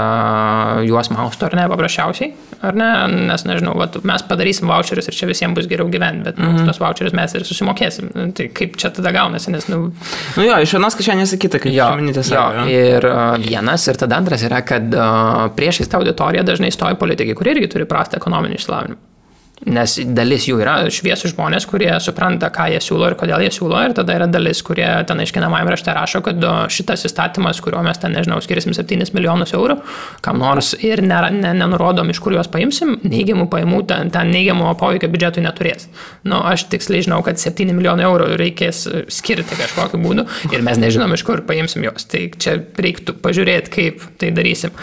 juos mausto ar ne, paprasčiausiai, ar ne, nes nežinau, mes padarysim voucherius ir čia visiems bus geriau gyventi, bet už tos voucherius mes ir susimokėsim. Tai kaip čia tada gaunasi, nes iš vienos kišenės į kitą, kaip čia minėtės. Ir vienas, ir tada antras yra, kad priešais tą auditoriją dažnai stoja politikai, kurie irgi turi prastą ekonominį išsilavinimą. Nes dalis jų yra šviesų žmonės, kurie supranta, ką jie siūlo ir kodėl jie siūlo, ir tada yra dalis, kurie ten aiškinamajam rašte rašo, kad šitas įstatymas, kuriuo mes ten, nežinau, skirisim 7 milijonus eurų, kam nors ir nenurodom, iš kur juos paimsim, neigiamų pajamų, ten neigiamų poveikio biudžetui neturės. Aš tiksliai žinau, kad 7 milijonų eurų reikės skirti kažkokiu būdu ir mes nežinom, iš kur paimsim juos. Tai čia reiktų pažiūrėti, kaip tai darysim.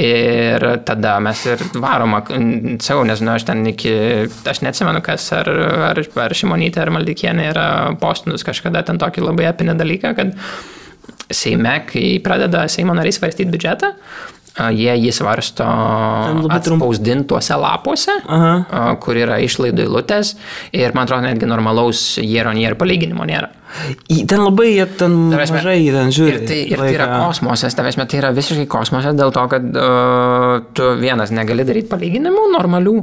Ir tada mes ir varoma, nežinau, aš neatsimenu, kas ar Šimonytė, ar Maldikienė yra postinus kažkada ten tokį labai epinį dalyką, kad Seime, kai pradeda Seimo nariai svarstyti biudžetą, jie jį svarsto atspausdintuose lapuose, kur yra išlaidų eilutės ir, man atrodo, netgi normalaus year-on-year palyginimo nėra. Ten labai mažai žiūri. Ir tai yra kosmosas, tai yra visiškai kosmosas dėl to, kad tu vienas negali daryti palyginimų normalių,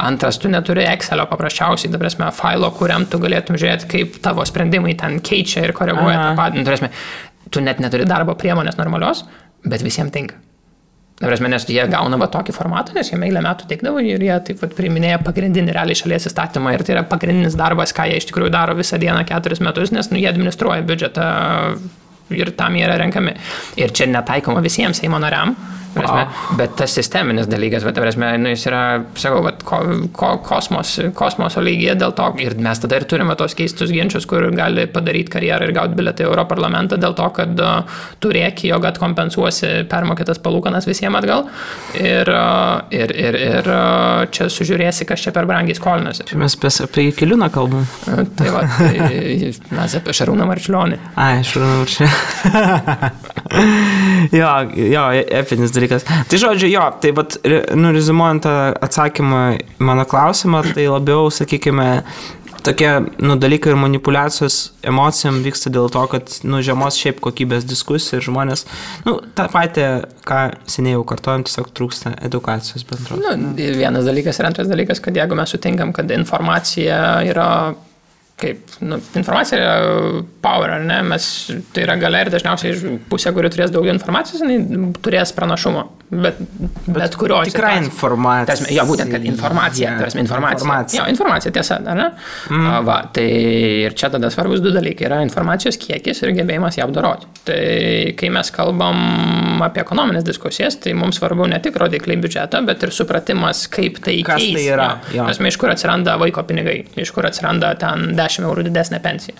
antras tu neturi Excelio paprasčiausiai, failo, kuriam tu galėtum žiūrėti, kaip tavo sprendimai ten keičia ir koreguoja tą patį. Tu net neturi darbo priemonės normalios, bet visiems tinka. Nes jie gauna tokį formatą, nes jie eilę metų teikdavo ir jie taip priiminėja pagrindinį realiai šalies įstatymą ir tai yra pagrindinis darbas, ką jie iš tikrųjų daro visą dieną 4 metus, nes jie administruoja biudžetą ir tam jie yra renkami. Ir čia netaikoma visiems Seimo nariam. Bet tas sisteminis dalykas, jis yra, sakau, kosmoso lygyje dėl to, ir mes tada ir turime tos keistus ginčius, kur gali padaryti karjerą ir gauti bilietą į Europarlamentą dėl to, kad turėki, jog atkompensuosi permokėtas palūkanas visiems atgal ir čia sužiūrėsi, kas čia per brangiai skolinasi. Mes apie Jakeliūną kalbam. Tai mes apie Šarūną Marčiulionį. Šarūną Marčiulionį. Jo, epinis dalykas. Tai žodžiu, tai rezimuojant tą atsakymą mano klausimą, tai labiau, sakykime, tokie dalykai ir manipuliacijos emocijom vyksta dėl to, kad žemos šiaip kokybės diskusija ir žmonės, tą patį, ką seniai jau kartojam, tiesiog trūksta edukacijos bendros. Vienas dalykas ir antras dalykas, kad jeigu mes sutinkam, kad informacija yra informacija yra power, ar ne? Tai yra galia ir dažniausiai pusė, kuri turės daugiau informacijos, turės pranašumo. Bet kurio tikra informacija. Jo, būtent, kad informacija. Jo, informacija, tiesa, ar ne? Tai ir čia tada svarbus 2 dalykai. Yra informacijos kiekis ir gebėjimas ją apdoroti. Tai kai mes kalbam apie ekonominės diskusijas, tai mums svarbu ne tik rodikliai biudžeto, bet ir supratimas, kaip tai keis. Kas tai yra? Iš kur atsiranda vaiko pinigai, iš kur atsiranda ten 10 eurų didesnė pensija.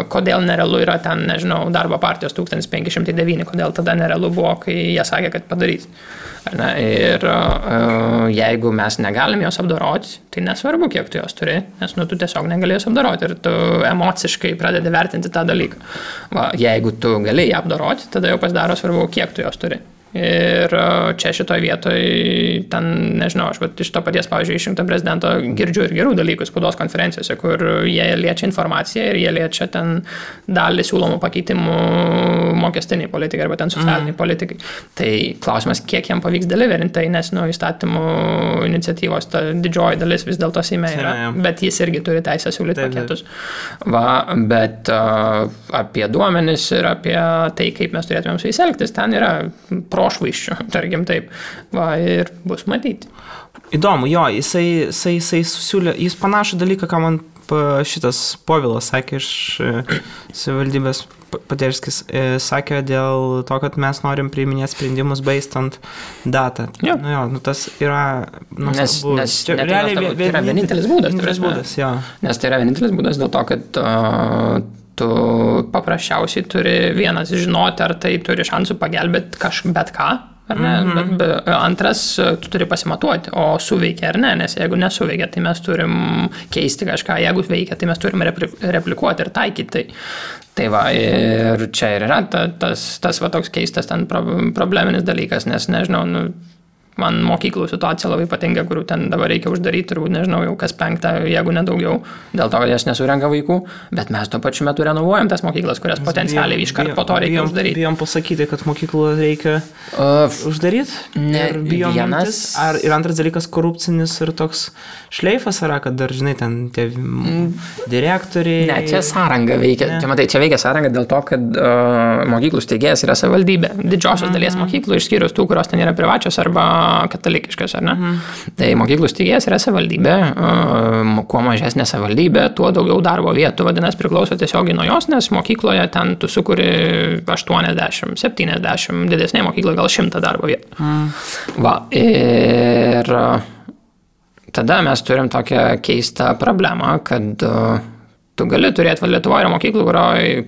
Kodėl nerealu yra ten, nežinau, darbo partijos 1509, kodėl tada nerealu buvo, kai jie sakė, kad padarys. Ir jeigu mes negalim jos apdoroti, tai nesvarbu, kiek tu jos turi, nes tu tiesiog negali jos apdoroti ir tu emociškai pradedi vertinti tą dalyką. Jeigu tu gali ją apdoroti, tada jau pasidaro svarbu, kiek tu jos turi. Ir čia šitoj vietoj, ten, nežinau, aš iš to paties, pavyzdžiui, išrinkto prezidento girdžiu ir gerų dalykų spaudos konferencijose, kur jie liečia informaciją ir jie liečia ten dalį siūlomų pakeitimų mokestiniai politikai arba ten socialiniai politikai. Tai klausimas, kiek jam pavyks deliverinti, tai nes įstatymų iniciatyvos ta didžioji dalis vis dėlto Seime yra, bet jis irgi turi teisę siūlyti paketus. Bet apie duomenis ir apie tai, kaip mes turėtumėm su jais elgtis, ten yra prošvaiščių, tarkim taip, ir bus matyti. Įdomu, jo, jisai susiūlė, jis panašų dalyką, ką man šitas Povilas sakė iš savivaldybės Paderskis, sakė dėl to, kad mes norim priiminėti sprendimus based ant data. Tas yra... Nes tai yra vienintelis būdas. Nes tai yra vienintelis būdas dėl to, kad tu paprasčiausiai turi vienas žinoti, ar tai turi šansų pagelbėti bet ką, ar ne? Bet antras, tu turi pasimatuoti, o suveikia ar ne, nes jeigu nesuveikia, tai mes turim keisti kažką, jeigu veikia, tai mes turim replikuoti ir taikyti. Tai ir čia ir yra tas toks keistas ten probleminis dalykas, nes nežinau, man mokyklų situacija labai patinka, kurių ten dabar reikia uždaryti, turbūt nežinau, jau kas 5, jeigu nedaugiau, dėl to, kad jas nesurenka vaikų, bet mes tuo pačiu metu renovuojam tas mokyklas, kurias potencialiai iškart po to reikia uždaryti. Bijom pasakyti, kad mokyklų reikia uždaryti? Vienas. Ir antras dalykas korupcinis ir toks šleifas yra, kad dar, žinai, ten tie direktoriai... Ne, čia sąranga veikia. Čia veikia sąranga dėl to, kad mokyklų steigėjas yra savivaldybė. Didžiosios dalies mokyklų, išskyrus tų, kurios ten yra privačios arba katalikiškas, ar ne? Tai mokyklų steigėjas yra savivaldybė, kuo mažesnė savivaldybė, tuo daugiau darbo vietų, vadinasi, priklauso tiesiogiai nuo jos, nes mokykloje ten tu sukuri 80, 70, didesnė mokykla gal 100 darbo vietų. Ir tada mes turim tokią keistą problemą, kad tu gali turėti, Lietuvoje yra mokyklų,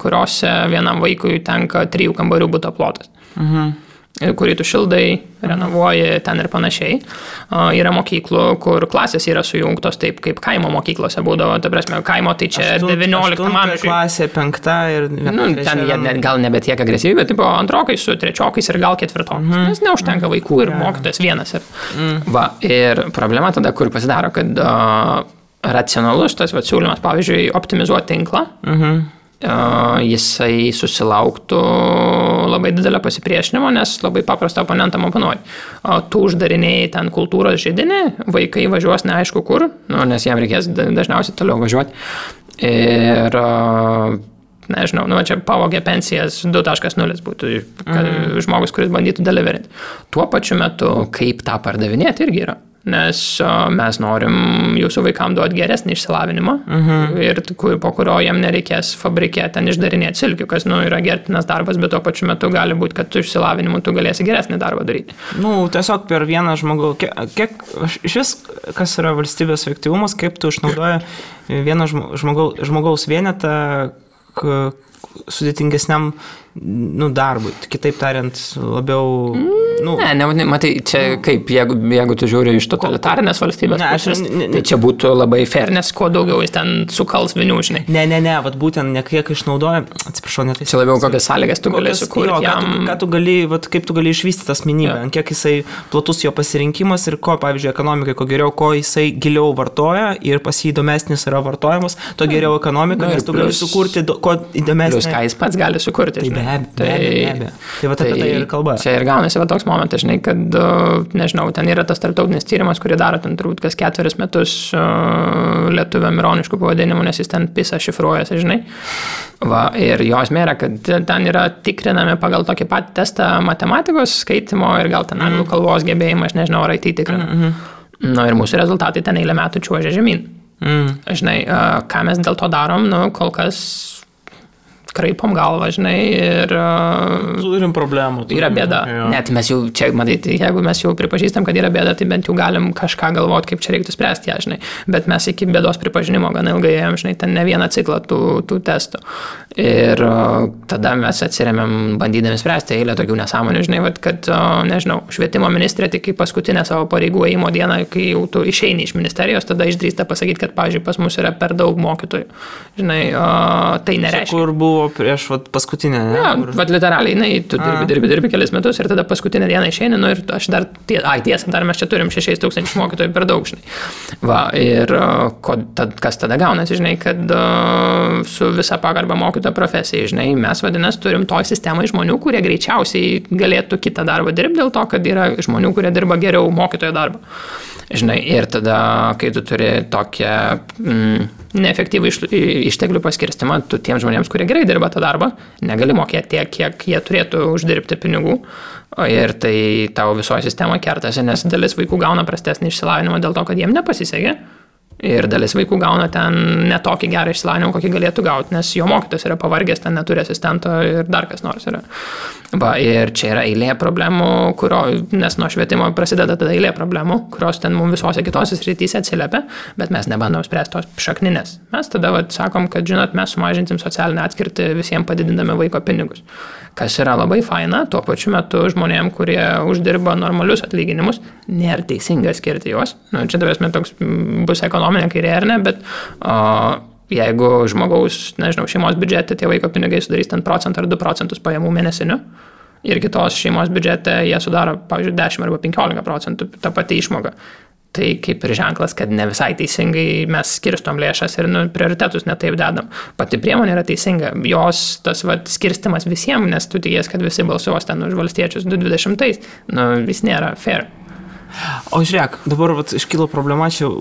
kuriuose vienam vaikui tenka 3 kambarių buto plotas. Kurį tu šildai, renovuoji ten ir panašiai. Yra mokyklų, kur klasės yra sujungtos taip, kaip kaimo mokyklose būdavo. Ta prasme, kaimo tai čia 19 amžiuje. Klasė 5 ir... ten jie gal nebe tiek agresyviai, bet tipo antrokai su trečiokais ir gal ketvirtokais. Nes neužtenka vaikų ir mokytojas vienas. Ir problema tada, kur pasidaro, kad racionalus tas siūlymas, pavyzdžiui, optimizuoti tinklą, jisai susilauktų labai didelio pasipriešinimo, nes labai paprastą oponentam oponuoji. Tu uždarinėjai ten kultūros židinį, vaikai važiuos neaišku kur, nes jam reikės dažniausiai toliau važiuoti. Ir nežinau, čia pavogė pensijas 2.0 būtų žmogus, kuris bandytų deliverinti. Tuo pačiu metu, kaip tą pardavinėti irgi yra. Nes mes norim jūsų vaikam duoti geresnį išsilavinimą ir po kurio jam nereikės fabrike ten išdarinėti silkių, kas yra gerbtinas darbas, bet tuo pačiu metu gali būti, kad tu išsilavinimu tu galėsi geresnį darbą daryti. Tiesiog per vieną žmogų, kiek iš vis, kas yra valstybės efektyvumas, kaip tu išnaudoji vieną žmogaus vienetą sudėtingesniam darbui. Kitaip tariant, labiau... Matai, čia kaip, jeigu tu žiūri iš totalitarinės valstybės pusės, tai čia būtų labai fair, nes kuo daugiau jis ten sukals vinių, žinai. Ne, vat būtent ne kiek išnaudoja, atsiprašau, net. Čia labiau kokias sąlygas tu gali sukurti jam. Kaip tu gali išvystyti asmenybę, kiek jisai platus jo pasirinkimas ir ko, pavyzdžiui, ekonomikai, ko geriau, ko jisai giliau vartoja ir pas jį įdomesnis yra vartojimas, to geriau ekonomika, nes tu gali sukurti ko įdomesnį. Plius ką jis pats gali sukurti. Be abejo. Tai va apie tai ir kalba. Čia ir gaunasi va toks momentas, žinai, kad, nežinau, ten yra tas tarptautinis tyrimas, kurį daro ten turbūt kas 4 metus lietuviam ironiškų pavadinimų, nes jis ten PISA šifruojasi, žinai. Ir jo esmė yra, kad ten yra tikrinami pagal tokį patį testą matematikos, skaitimo ir gal ten anglų kalbos gebėjimą, aš nežinau, ar IT tikrina. Ir mūsų rezultatai ten eilę metų čiuožia žemyn. Žinai, ką mes dėl to darom, kol kas kraipom galvą, žinai, ir... Turim problemų. Yra bėda. Net mes jau, čia, matai, jeigu mes jau pripažįstam, kad yra bėda, tai bent jau galim kažką galvoti, kaip čia reiktų spręsti ją, žinai. Bet mes iki bėdos pripažinimo gana ilgai ėjom, žinai, ten ne vieną ciklą tų testų. Ir tada mes atsiremiam bandydami spręsti eilę tokių nesąmonių, žinai, kad, nežinau, švietimo ministrė tik kaip paskutinę savo pareigų ėjimo dieną, kai jau tu išeini iš ministerijos, tada išdrįsta pasakyti, kad, pavyzdžiui, pas mus yra per daug mokytojų. Žinai, tai nereiškia. Kur buvo prieš paskutinę, ne? Ja, literaliai, tu dirbi kelis metus ir tada paskutinę dieną išeini, ir aš dar, tiesa, dar mes čia turim 6,000 mokytojų per daug, žinai. Ir kas tada gaunasi, žinai, kad su visa pagarba mokytojo profesijai, žinai, mes vadinasi turim toj sistemai žmonių, kurie greičiausiai galėtų kitą darbą dirbti dėl to, kad yra žmonių, kurie dirba geriau mokytojo darbą. Žinai, ir tada, kai tu turi tokią neefektyvų išteklių paskirstimą, tu tiems žmonėms, kurie gerai dirba tą darbą, negali mokėti tiek, kiek jie turėtų uždirbti pinigų. Ir tai tavo visoje sistemoje kertasi, nes dalis vaikų gauna prastesnį išsilavinimą dėl to, kad jiem nepasisekė. Ir dalis vaikų gauna ten netokį gerą išsilavinimą, kokį galėtų gauti, nes jo mokytojas yra pavargęs, ten neturi asistento ir dar kas nors yra. Ir čia yra eilė problemų, nes nuo švietimo prasideda tada eilė problemų, kurios ten mums visose kitose srityse atsiliepia, bet mes nebandom spręsti tos šakninės. Mes tada sakom, kad, žinot, mes sumažinsim socialinę atskirtį visiems padidindami vaiko pinigus. Kas yra labai faina, tuo pačiu metu žmonėm, kurie uždirba normalius atlyginimus, nėra teisinga skirti juos. Čia tavęs toks bus ekonominė kairė ar ne, bet jeigu žmogaus, nežinau, šeimos biudžete tie vaiko pinigai sudarys 1% ar 2% pajamų mėnesinių ir kitos šeimos biudžete jie sudaro, pavyzdžiui, 10 arba 15% tą patį išmoką. Tai kaip ir ženklas, kad ne visai teisingai mes skirstom lėšas ir prioritetus netaip dedam. Pati priemonė yra teisinga. Jos tas skirstimas visiems, nes tu tikės, kad visi balsuos ten už valstiečius 2020, vis nėra fair. O žiūrėk, dabar iškilo problema, čia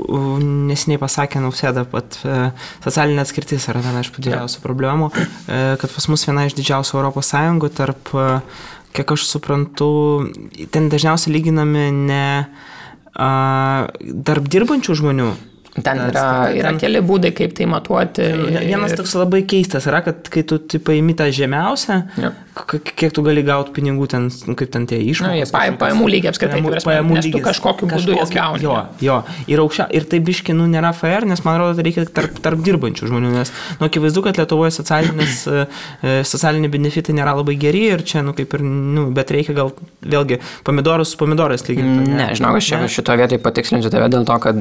nesiniai pasakė Nausėda, pat socialinė atskirtis yra viena iš didžiausių problemų, kad pas mus viena iš didžiausių Europos Sąjungų tarp, kiek aš suprantu, ten dažniausiai lyginami ne tarp dirbančių žmonių. Ten yra keli būdai, kaip tai matuoti. Vienas toks labai keistas yra, kad kai tu paimi tą žemiausią, kiek tu gali gauti pinigų ten, kaip ten tie išmokos. Pajamų lygį apskritai, nes tu kažkokiu būdu jas gauni. Jo. Ir tai biški, nėra fair, nes man atrodo, reikia tarp dirbančių žmonių, nes, akivaizdu, kad Lietuvoje socialiniai benefitai nėra labai geri ir čia, kaip ir, bet reikia gal vėlgi pomidorus su pomidorais lyginti. Ne, žinau, aš šitoje vietoje patikslinsiu tave dėl to, kad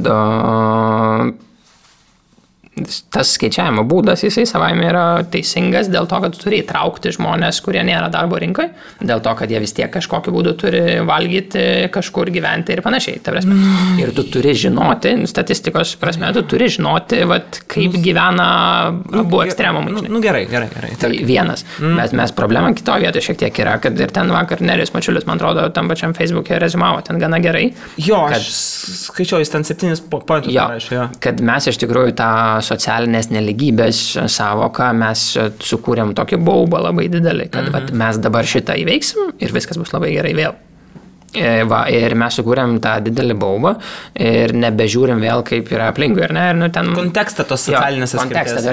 tas skaičiavimo būdas, jisai savaime yra teisingas dėl to, kad tu turi įtraukti žmonės, kurie nėra darbo rinkoje, dėl to, kad jie vis tiek kažkokiu būdu turi valgyti, kažkur gyventi ir panašiai. Ir tu turi žinoti, statistikos prasme, tu turi žinoti, kaip gyvena abu ekstremumai. Gerai. Tai vienas. Mes problema kitoje vietoje šiek tiek yra, kad ir ten vakar Nerijus Mačiulis, man atrodo, tam pačiam Facebook'e rezumavo ten gana gerai. Jo, aš skaičiau, jis ten 7 pointus parašė. Kad mes iš tikrųjų tą socialinės neligybės savoką mes sukūrėm tokį baubą labai didelį, kad vat, mes dabar šitą įveiksim ir viskas bus labai gerai vėl. Ir mes sukūrėm tą didelį baubą ir nebežiūrim vėl, kaip yra aplinkui, ir ten... Kontekstą tos socialinės atskirties.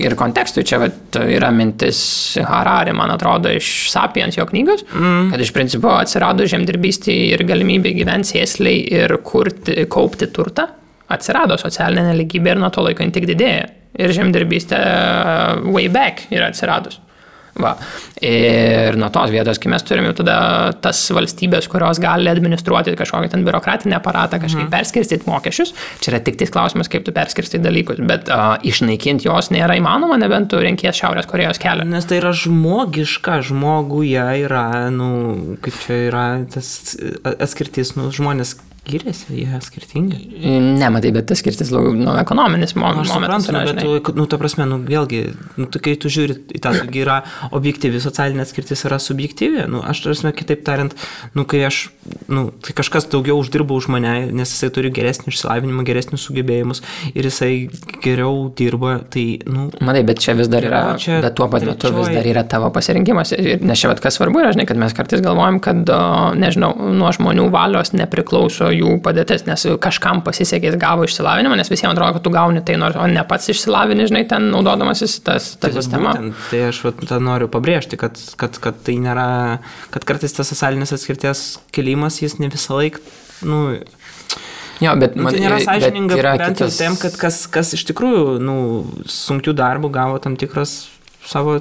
Ir kontekstui čia vat, yra mintis Harari, man atrodo, iš Sapiens jo knygos, kad iš principo atsirado žemdirbystė ir galimybė gyventi sėsliai ir kaupti turtą, atsirado socialinė neligybė ir nuo to laiko jin tik didėja. Ir žemdirbystė way back yra atsiradus. Va. Ir nuo tos vietos, kai mes turime jau tada tas valstybės, kurios gali administruoti kažkokį ten biurokratinį aparatą, kažkaip perskirstyti mokesčius, čia yra tik tais klausimas, kaip tu perskirstyti dalykus, bet išnaikinti jos nėra įmanoma, nebent tu renkies Šiaurės Korėjos kelią. Nes tai yra žmogiška, žmoguje yra, kaip čia yra tas atskirtis, žmonės skiriasi, jie skirtingi. Ne, matai, bet tas skirtis ekonominis momentas. Aš suprantu, bet ta prasme, vėlgi, kai tu žiūri į tą, yra objektyvi socialinė atskirtis, yra subjektyvi. Aš tarsi, kitaip tariant, kai kai kažkas daugiau uždirba už mane, nes jisai turi geresnį išsilavinimą, geresnius sugebėjimus ir jisai geriau dirba, tai, Matai, bet čia vis dar yra, bet tuo pat metu vis dar yra tavo pasirinkimas. Nes čia, kas svarbu yra, žinai, kad mes kartais galvojam, kad, nežinau, nuo žmonių valios nepriklauso jų padėtis, nes kažkam pasisekė, jis gavo išsilavinimą, nes visiems atrodo, kad tu gauni tai, o ne pats išsilavini, žinai, ten naudodamasis tą sistemą. Tai aš noriu pabrėžti, kad tai nėra, kad kartais tas socialinės atskirties kelimas, jis ne visą laiką, Jo, bet tai nėra sąžininga, bent jau tiem, kad kas iš tikrųjų, sunkių darbų gavo tam tikras savo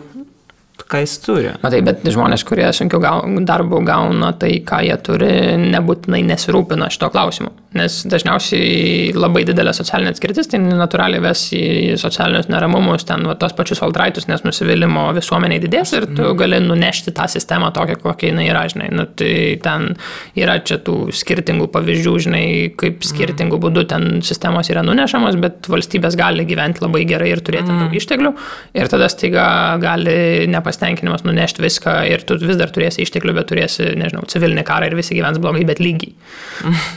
ką jis turi. Matai, bet žmonės, kurie sunkiau darbų gauna tai, ką jie turi, nebūtinai nesirūpina šito klausimu. Nes dažniausiai labai didelė socialinė atskirtis, tai natūraliai ves į socialinius neramumus, ten tos pačius valdraitus, nes nusivylimo visuomeniai didės ir tu gali nunešti tą sistemą tokią, kokia jinai yra, žinai. Tai ten yra čia tų skirtingų pavyzdžių, žinai, kaip skirtingų būdų ten sistemos yra nunešamos, bet valstybės gali gyventi labai gerai ir turėti daug išteklių ir tada staiga gali nepasitenkinimas nunešti viską ir tu vis dar turėsi išteklių, bet turėsi, nežinau, civilinį karą ir visi gyvens blogai, bet lygiai.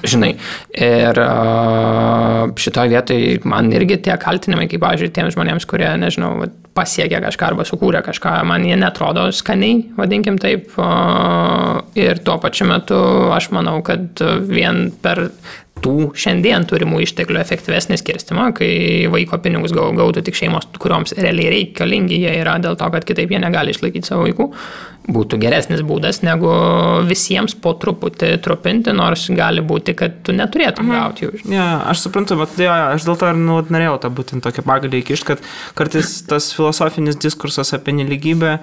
Žinai. Ir šitoje vietoje man irgi tie kaltinimai, kaip, pavyzdžiui, tiems žmonėms, kurie, nežinau, pasiekė kažką arba sukūrė kažką, man jie netrodo skaniai, vadinkim taip. Ir tuo pačiu metu aš manau, kad vien per tų šiandien turimų išteklių efektyvesnį skirstimą, kai vaiko pinigus gautų tik šeimos, kurioms realiai reikalingi jie yra dėl to, kad kitaip jie negali išlaikyti savo vaikų, būtų geresnis būdas, negu visiems po truputį trupinti, nors gali būti, kad tu neturėtum gauti jų. Ja, aš suprantu, bet aš dėl to ir norėjau tą būtent tokią pagalį įkišti, kad kartais tas filosofinis diskursas apie nelygybę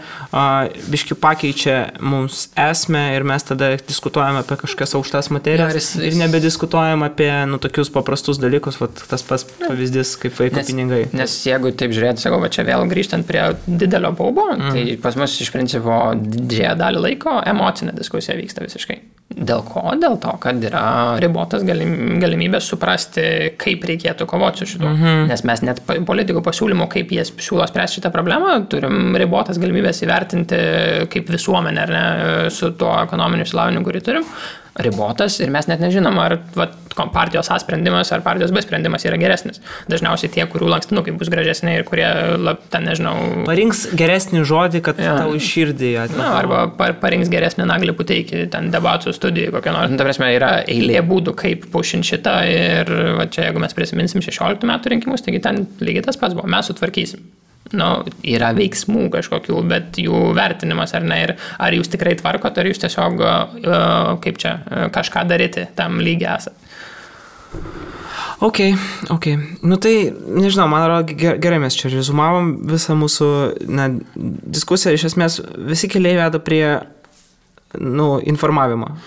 biški pakeičia mums esmę ir mes tada diskutuojame apie kažkokias aukštas materijas ir nebediskutuojame apie tokius paprastus dalykus, tas pats pavyzdys kaip vaiko pinigai. Nes jeigu taip žiūrėti, sakau, čia vėl grįžtant prie didelio baubo, tai pas mus iš principo didžiąją dalį laiko emocinė diskusija vyksta visiškai. Dėl ko? Dėl to, kad yra ribotas galimybės suprasti, kaip reikėtų kovoti su šitu. Nes mes net politikų pasiūlymų, kaip jie siūlo spręsti šitą problemą, turim ribotas galimybės įvertinti kaip visuomenė, ar ne, su tuo ekonominiu išsilavinimu, kurį turim. Ribotas ir mes net nežinom, ar partijos A sprendimas ar partijos B sprendimas yra geresnis. Dažniausiai tie, kurių lankstinukai bus gražesni ir kurie, ten nežinau... Parinks geresnį žodį, kad tau iš širdį atneša. Arba parinks geresnį Naglį Puteikį, ten debatų studijų kokią nors. Ta prasme, yra eilė būdų, kaip pušint šitą ir čia, jeigu mes prisiminsim 16 metų rinkimus, taigi ten lygiai tas pats buvo, mes sutvarkysim. Yra veiksmų kažkokių, bet jų vertinimas ar ne, ir ar jūs tikrai tvarkot, ar jūs tiesiog, kaip čia, kažką daryti tam lygiai esat. Ok. Tai, nežinau, man atrodo, gerai mes čia rezumavom visą mūsų diskusiją. Iš esmės, visi keliai veda prie informavimo,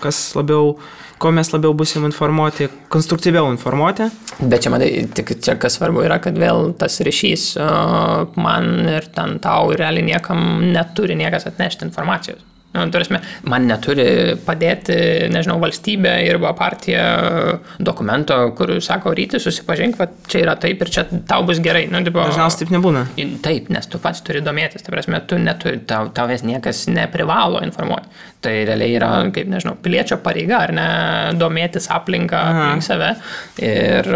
ko mes labiau busim informuoti, konstruktyviau informuoti. Bet čia, matai, tik čia kas svarbu yra, kad vėl tas ryšys man ir ten tau realiai niekam neturi niekas atnešti informacijos. Man neturi padėti, nežinau, valstybė arba partija dokumento, kur sako, ryti susipažink, čia yra taip ir čia tau bus gerai. Dažniausiai taip nebūna. Taip, nes tu pats turi domėtis, tau vis niekas neprivalo informuoti. Tai realiai yra, kaip, nežinau, piliečio pareiga, ar ne, domėtis aplinką aplink save. Ir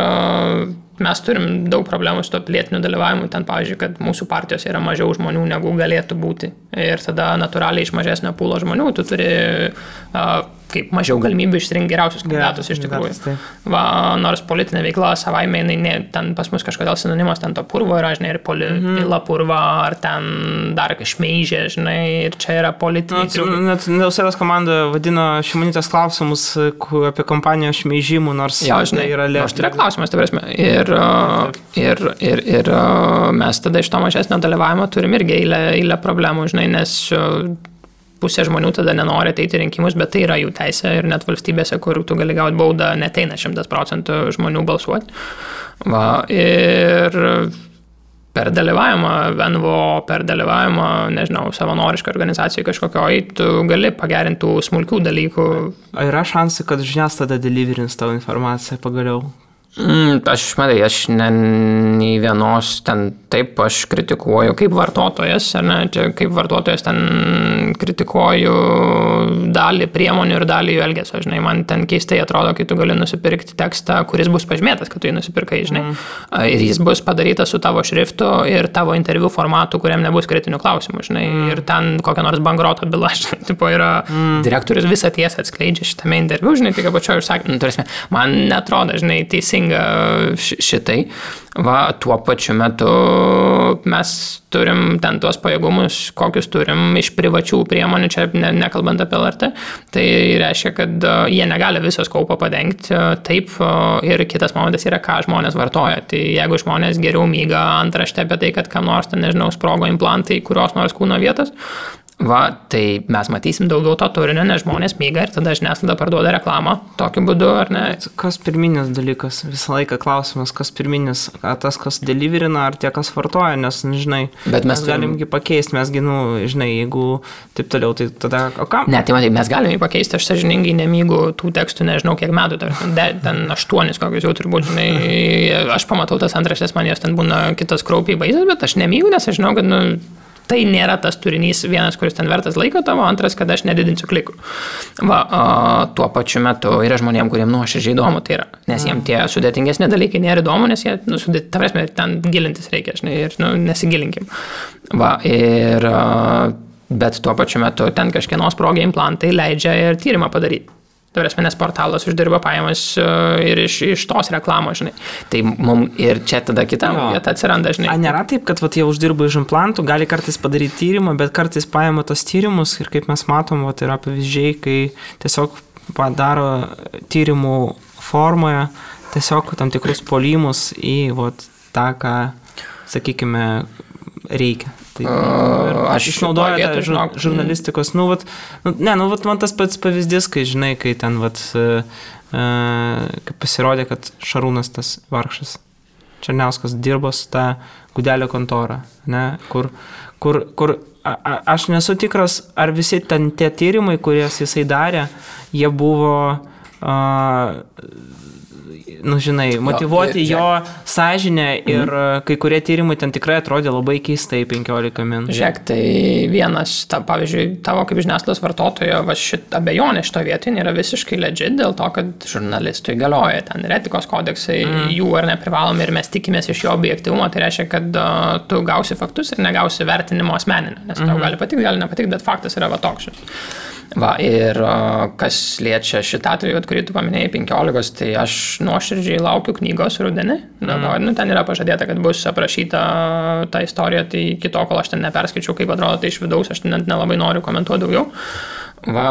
mes turim daug problemų su to pilietiniu dalyvavimu, ten, pavyzdžiui, kad mūsų partijos yra mažiau žmonių, negu galėtų būti. Ir tada natūraliai iš mažesnio pūlo žmonių tu turi kaip mažiau galimybių išsirinkti geriausius kandidatus iš tikrųjų. Va, nors politinė veikla savaime, ten pas mus kažkodėl sinonimas ten to purvo yra, žinai, ir pila purva, ar ten dar šmeižė, žinai, ir čia yra politiniai. Net Nausėdos komanda vadino Šimonytės klausimus apie kampanijos šmeižimų, nors žinai, yra lėšų. Nors tai yra klausimas, tai prasme. Ir mes tada iš to mažesnio dalyvavimo turim irgi eilę problemų, žinai, nes pusė žmonių tada nenori ateiti rinkimus, bet tai yra jų teisė ir net valstybėse, kur tu gali gauti baudą, neteina 100% žmonių balsuoti. Va, ir per dalyvavimą, NVO, per dalyvavimą, nežinau, savanorišką organizaciją kažkokioj, tu gali pagerinti tų smulkių dalykų. Yra šansai, kad žiniasklaida deliverins tavo informaciją pagaliau? Aš nei vienos ten taip aš kritikuoju kaip vartotojas, ar ne, čia kaip vartotojas ten kritikuoju dalį priemonių ir dalį jų elgesio, žinai, man ten keistai atrodo, kai tu gali nusipirkti tekstą, kuris bus pažymėtas, kad tu jį nusipirkai, žinai, ir jis bus padarytas su tavo šriftu ir tavo interviu formatu, kuriam nebus kritinių klausimų, žinai, ir ten kokia nors bankroto byla, žinai, tipo yra direktorius visą tiesą atskleidžia šitame interviu, žinai, tik apačioje užsakymą, man netrodo, žinai, šitai. Va, tuo pačiu metu mes turim ten tuos pajėgumus, kokius turim iš privačių priemonių, čia nekalbant apie LRT, tai reiškia, kad jie negali visos kaupo padengti taip, ir kitas momentas yra, ką žmonės vartoja. Tai jeigu žmonės geriau myga antraštę apie tai, kad kam nors, ten, nežinau, sprogo implantai, kurios nors kūno vietos, va, tai mes matysim daugiau to turinio, nes žmonės myga ir tada žiniasklaida parduoda reklamą tokiu būdu, ar ne? Kas pirminis dalykas? Visą laiką klausimas, kas pirminis? Ar tas, kas deliverina, ar tie, kas vartoja? Nes, žinai, bet mes galimgi pakeisti, mesgi, žinai, jeigu taip toliau, tai tada, o kam? Ne, tai matai, mes galime pakeisti, aš sąžiningai nemygu tų tekstų, nežinau, kiek metų, ten 8 kokius jau turbūt, žinai, aš pamatau tas antraštės, man jos ten būna kitas kraupiai baisas, bet aš nemygu, nes aš žinau, kad, tai nėra tas turinys vienas, kuris ten vertas laiko tavo, antras, kad aš nedidinsiu klikų. Va, tuo pačiu metu yra žmonėm, kuriem nuoširdžiai įdomu tai yra, nes jiem tie sudėtingesni dalykai nėra įdomu, nes jie, ta prasme, ten gilintis reikia, žinai, ir nesigilinkim. Va, ir, bet tuo pačiu metu ten kažkieno sprogę implantai leidžia ir tyrimą padaryti. Tai prasme, nes portalas uždirba pajamas ir iš tos reklamos, žinai. Tai mums ir čia tada kita vieta atsiranda, žinai. Nėra taip, kad jie uždirba iš implantų, gali kartais padaryti tyrimą, bet kartais paima tos tyrimus ir kaip mes matom, yra pavyzdžiai, kai tiesiog padaro tyrimų formoje tiesiog tam tikrus polimus į tą, ką, sakykime, reikia. Tai, aš išnaudoju žurnalistikos, man tas pats pavyzdys, kai, žinai, kai ten, kai pasirodė, kad Šarūnas tas vargšas Černiauskas dirbo su tą Gudelio kontorą, ne, kur aš nesu tikras, ar visi ten tie tyrimai, kurias jisai darė, jie buvo žinai, motyvuoti jo sąžinę ir kai kurie tyrimai ten tikrai atrodė labai keistai 15 min. Žiūrėk, tai vienas, pavyzdžiui, tavo kaip žiniasklaidos vartotojo abejonė šito vietin yra visiškai legit dėl to, kad žurnalistui galioja ten ir etikos kodeksai, jų ar neprivalomi ir mes tikimės iš jo objektyvumo, tai reiškia, kad tu gausi faktus ir negausi vertinimo asmeninio, nes tau gali patikti, gali nepatikti, bet faktas yra toks. Va, ir kas liečia šitą atveju, kurį tu paminėjai 15, tai aš nuoširdžiai laukiu knygos rudenį. Ten yra pažadėta, kad bus aprašyta ta istorija, tai kito, kol aš ten neperskaičiau, kaip atrodo tai iš vidaus, aš net nelabai noriu komentuoti daugiau. Va,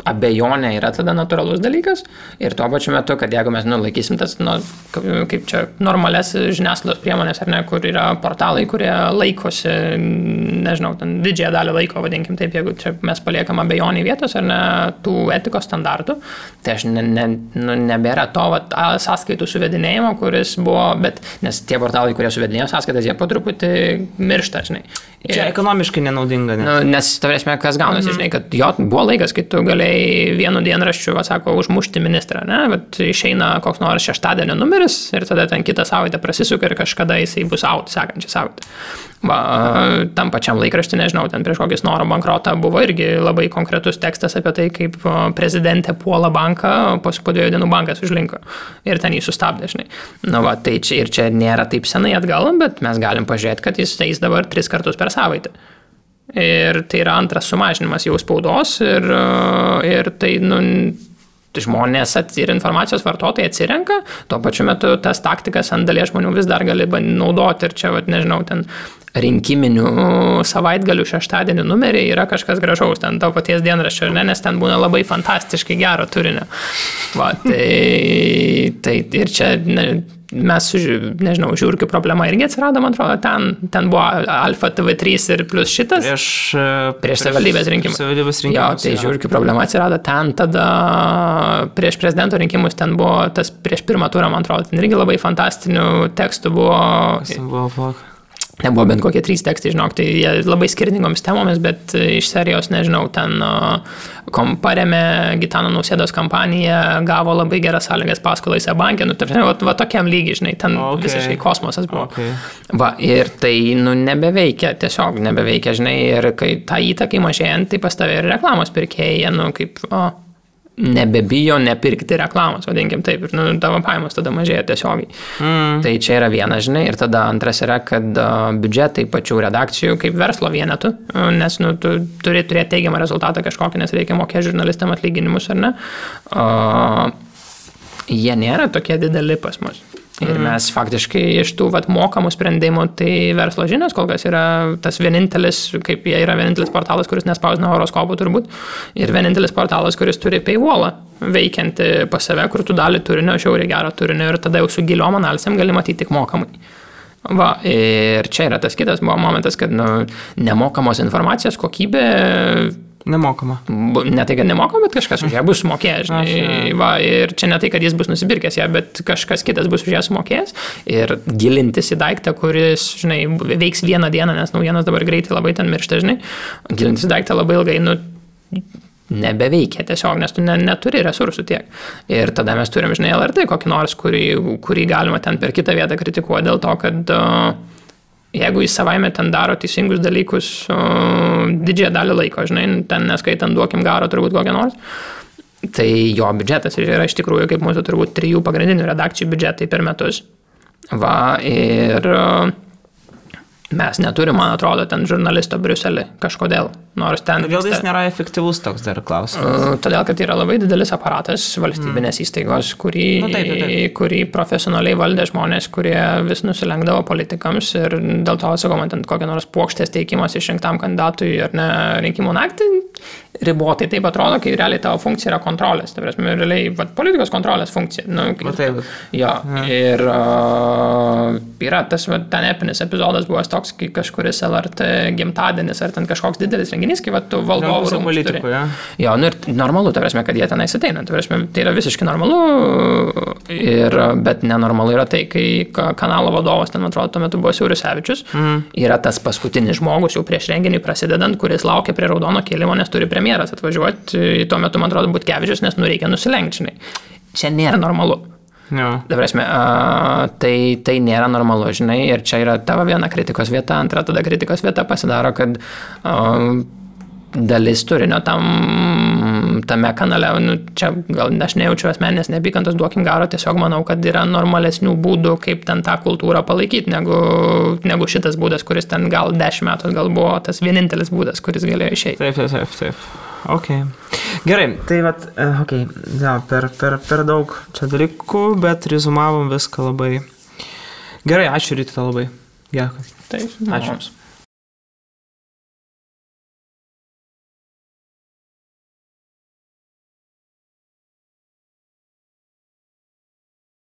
abejonė yra tada natūralus dalykas ir tuo pačiu metu, kad jeigu mes laikysim tas, kaip čia, normales žiniasklaidos priemonės, ar ne, kur yra portalai, kurie laikosi, nežinau, ten didžiąją dalį laiko, vadinkim taip, jeigu čia mes paliekam abejonį vietos, ar ne, tų etikos standartų, tai aš nebėra to sąskaitų suvedinėjimo, kuris buvo, bet nes tie portalai, kurie suvedinėjo sąskaitas, jie po truputį miršta, žinai. Čia ekonomiškai nenaudinga, ne? Nes, tavrėsime, kas gaunasi, žinai, kad jo buvo laikas, kai tu galėjai vienu dienraščiu, užmušti ministrą, ne? Bet išeina koks nors šeštadienio numeris ir tada ten kitą savaitę prasisuka ir kažkada jisai bus out, sekančią savaitę. Tam pačiam laikraštį, nežinau, ten prieš kokį Snoro bankrotą buvo irgi labai konkretus tekstas apie tai, kaip prezidentė puola banką, po 2 dienų bankas užlinko ir ten jį sustabdė, žinai. Tai čia nėra taip senai atgal, bet mes galim pažiūrėti, kad jis eis dabar 3 kartus per savaitę. Ir tai yra antras sumažinimas jau spaudos ir tai, žmonės ir informacijos vartotojai atsirenka, tuo pačiu metu tas taktikas ant dalies žmonių vis dar gali naudoti ir čia, nežinau, ten rinkiminių savaitgalių šeštadienį numeriai yra kažkas gražaus, ten to paties dienraščio, nes ten būna labai fantastiškai gero turinio. Tai ir čia mes, nežinau, žiūrkių problema irgi atsirado, man atrodo, ten buvo Alfa TV3 ir plus šitas prieš savivaldybės rinkimus. Jo, tai žiūrkių problema atsirado ten, tada prieš prezidento rinkimus ten buvo tas prieš pirmą turą, man atrodo, ten irgi labai fantastinių tekstų buvo. Nebuvo bent kokie 3 tekstai, žinok, tai jie labai skirtingomis temomis, bet iš serijos, nežinau, ten paremė Gitano Nausėdos kampaniją, gavo labai geras sąlygas paskolai banke, tokiam lygiai, žinai, ten visiškai kosmosas buvo. Ir tai, nebeveikia, tiesiog nebeveikia, žinai, ir kai tą įtakai mažėjant, tai pas tave ir reklamos pirkėjai, kaip nebebijo nepirkti reklamos, vadinkim taip, ir tavo pajamos tada mažėja tiesiogiai. Tai čia yra viena, žinai, ir tada antras yra, kad biudžetai pačių redakcijų kaip verslo vienetų, nes tu turi turėti teigiamą rezultatą kažkokį, nes reikia mokėti žurnalistam atlyginimus, ar ne? Jie nėra tokie dideli pas mus. Ir mes faktiškai iš tų mokamų sprendimų, tai verslo žinios kol kas yra tas vienintelis, kaip jie yra vienintelis portalas, kuris nespausina horoskopų turbūt, ir vienintelis portalas, kuris turi paywallą veikianti pas save, kur tu dalį turinio, žiauriai gero turinio ir tada jau su giliom analizėm gali matyti tik mokamai. Ir čia yra tas kitas momentas, kad nemokamos informacijos kokybė nemokama. Ne tai, kad nemokama, bet kažkas už ją bus sumokėjęs. Ir čia ne tai, kad jis bus nusipirkęs ją, bet kažkas kitas bus už ją sumokėjęs. Ir gilintis į daiktą, kuris, žinai, veiks vieną dieną, nes naujienos dabar greitai labai ten miršta, žinai. Gilintis į daiktą labai ilgai, nebeveikia tiesiog, nes tu neturi resursų tiek. Ir tada mes turim, žinai, LRT kokį nors, kurį galima ten per kitą vietą kritikuoti dėl to, kad jeigu jis savaime ten daro teisingus dalykus didžiąją dalį laiko, žinai, ten neskaitant duokim garo turbūt kokią nors, tai jo biudžetas yra iš tikrųjų kaip mūsų turbūt 3 pagrindinių redakcijų biudžetai per metus. Ir mes neturim, man atrodo, ten žurnalisto Briuselį kažkodėl. Kodėl jis nėra efektyvus, toks dar klausimas? Todėl, kad yra labai didelis aparatas valstybinės įstaigos, kurį profesionaliai valdė žmonės, kurie vis nusilenkdavo politikams ir dėl to, sakau, man ten kokią nors puokštės teikimas išrinktam kandidatui ar ne rinkimų naktį ribotai taip atrodo, kai realiai tavo funkcija yra kontrolės. Tai prasme, realiai politikos kontrolės funkcija. Jo. Ir yra tas ten epinis epizodas buvo toks, kai kažkuris LRT gimtadienis ar ten kažkoks didelis renginys, kai tu valdovų rūmus turi. Jo, ir normalu, tai prasme, kad jie tenais ateina. Tai prasme, tai yra visiškai normalu, bet nenormalu yra tai, kai kanalo vadovas, ten atrodo, tuo metu buvo Siaurusevičius, yra tas paskutinis žmogus jau prieš renginį prasidedant, kuris laukia prie raudono kėlimo, nes turi premjeras atvažiuoti, tuo metu, man atrodo, Butkevičius, nes reikia nusilenkti, žinai. Čia nėra normalu. Prasme, tai nėra normalu, žinai, ir čia yra tavo viena kritikos vieta, antra tada kritikos vieta pasidaro, kad dalis turinio tame kanale, čia gal aš nejaučiu asmeninės neapykantos, duokim garo, tiesiog manau, kad yra normalesnių būdų, kaip ten tą kultūrą palaikyti, negu šitas būdas, kuris ten gal 10 metų gal buvo tas vienintelis būdas, kuris galėjo išeiti. Taip. Ok. Gerai, tai per daug čia dalykų, bet rezumavom viską labai. Gerai, ačiū Rytita labai. Dėkui. Taip, ačiū.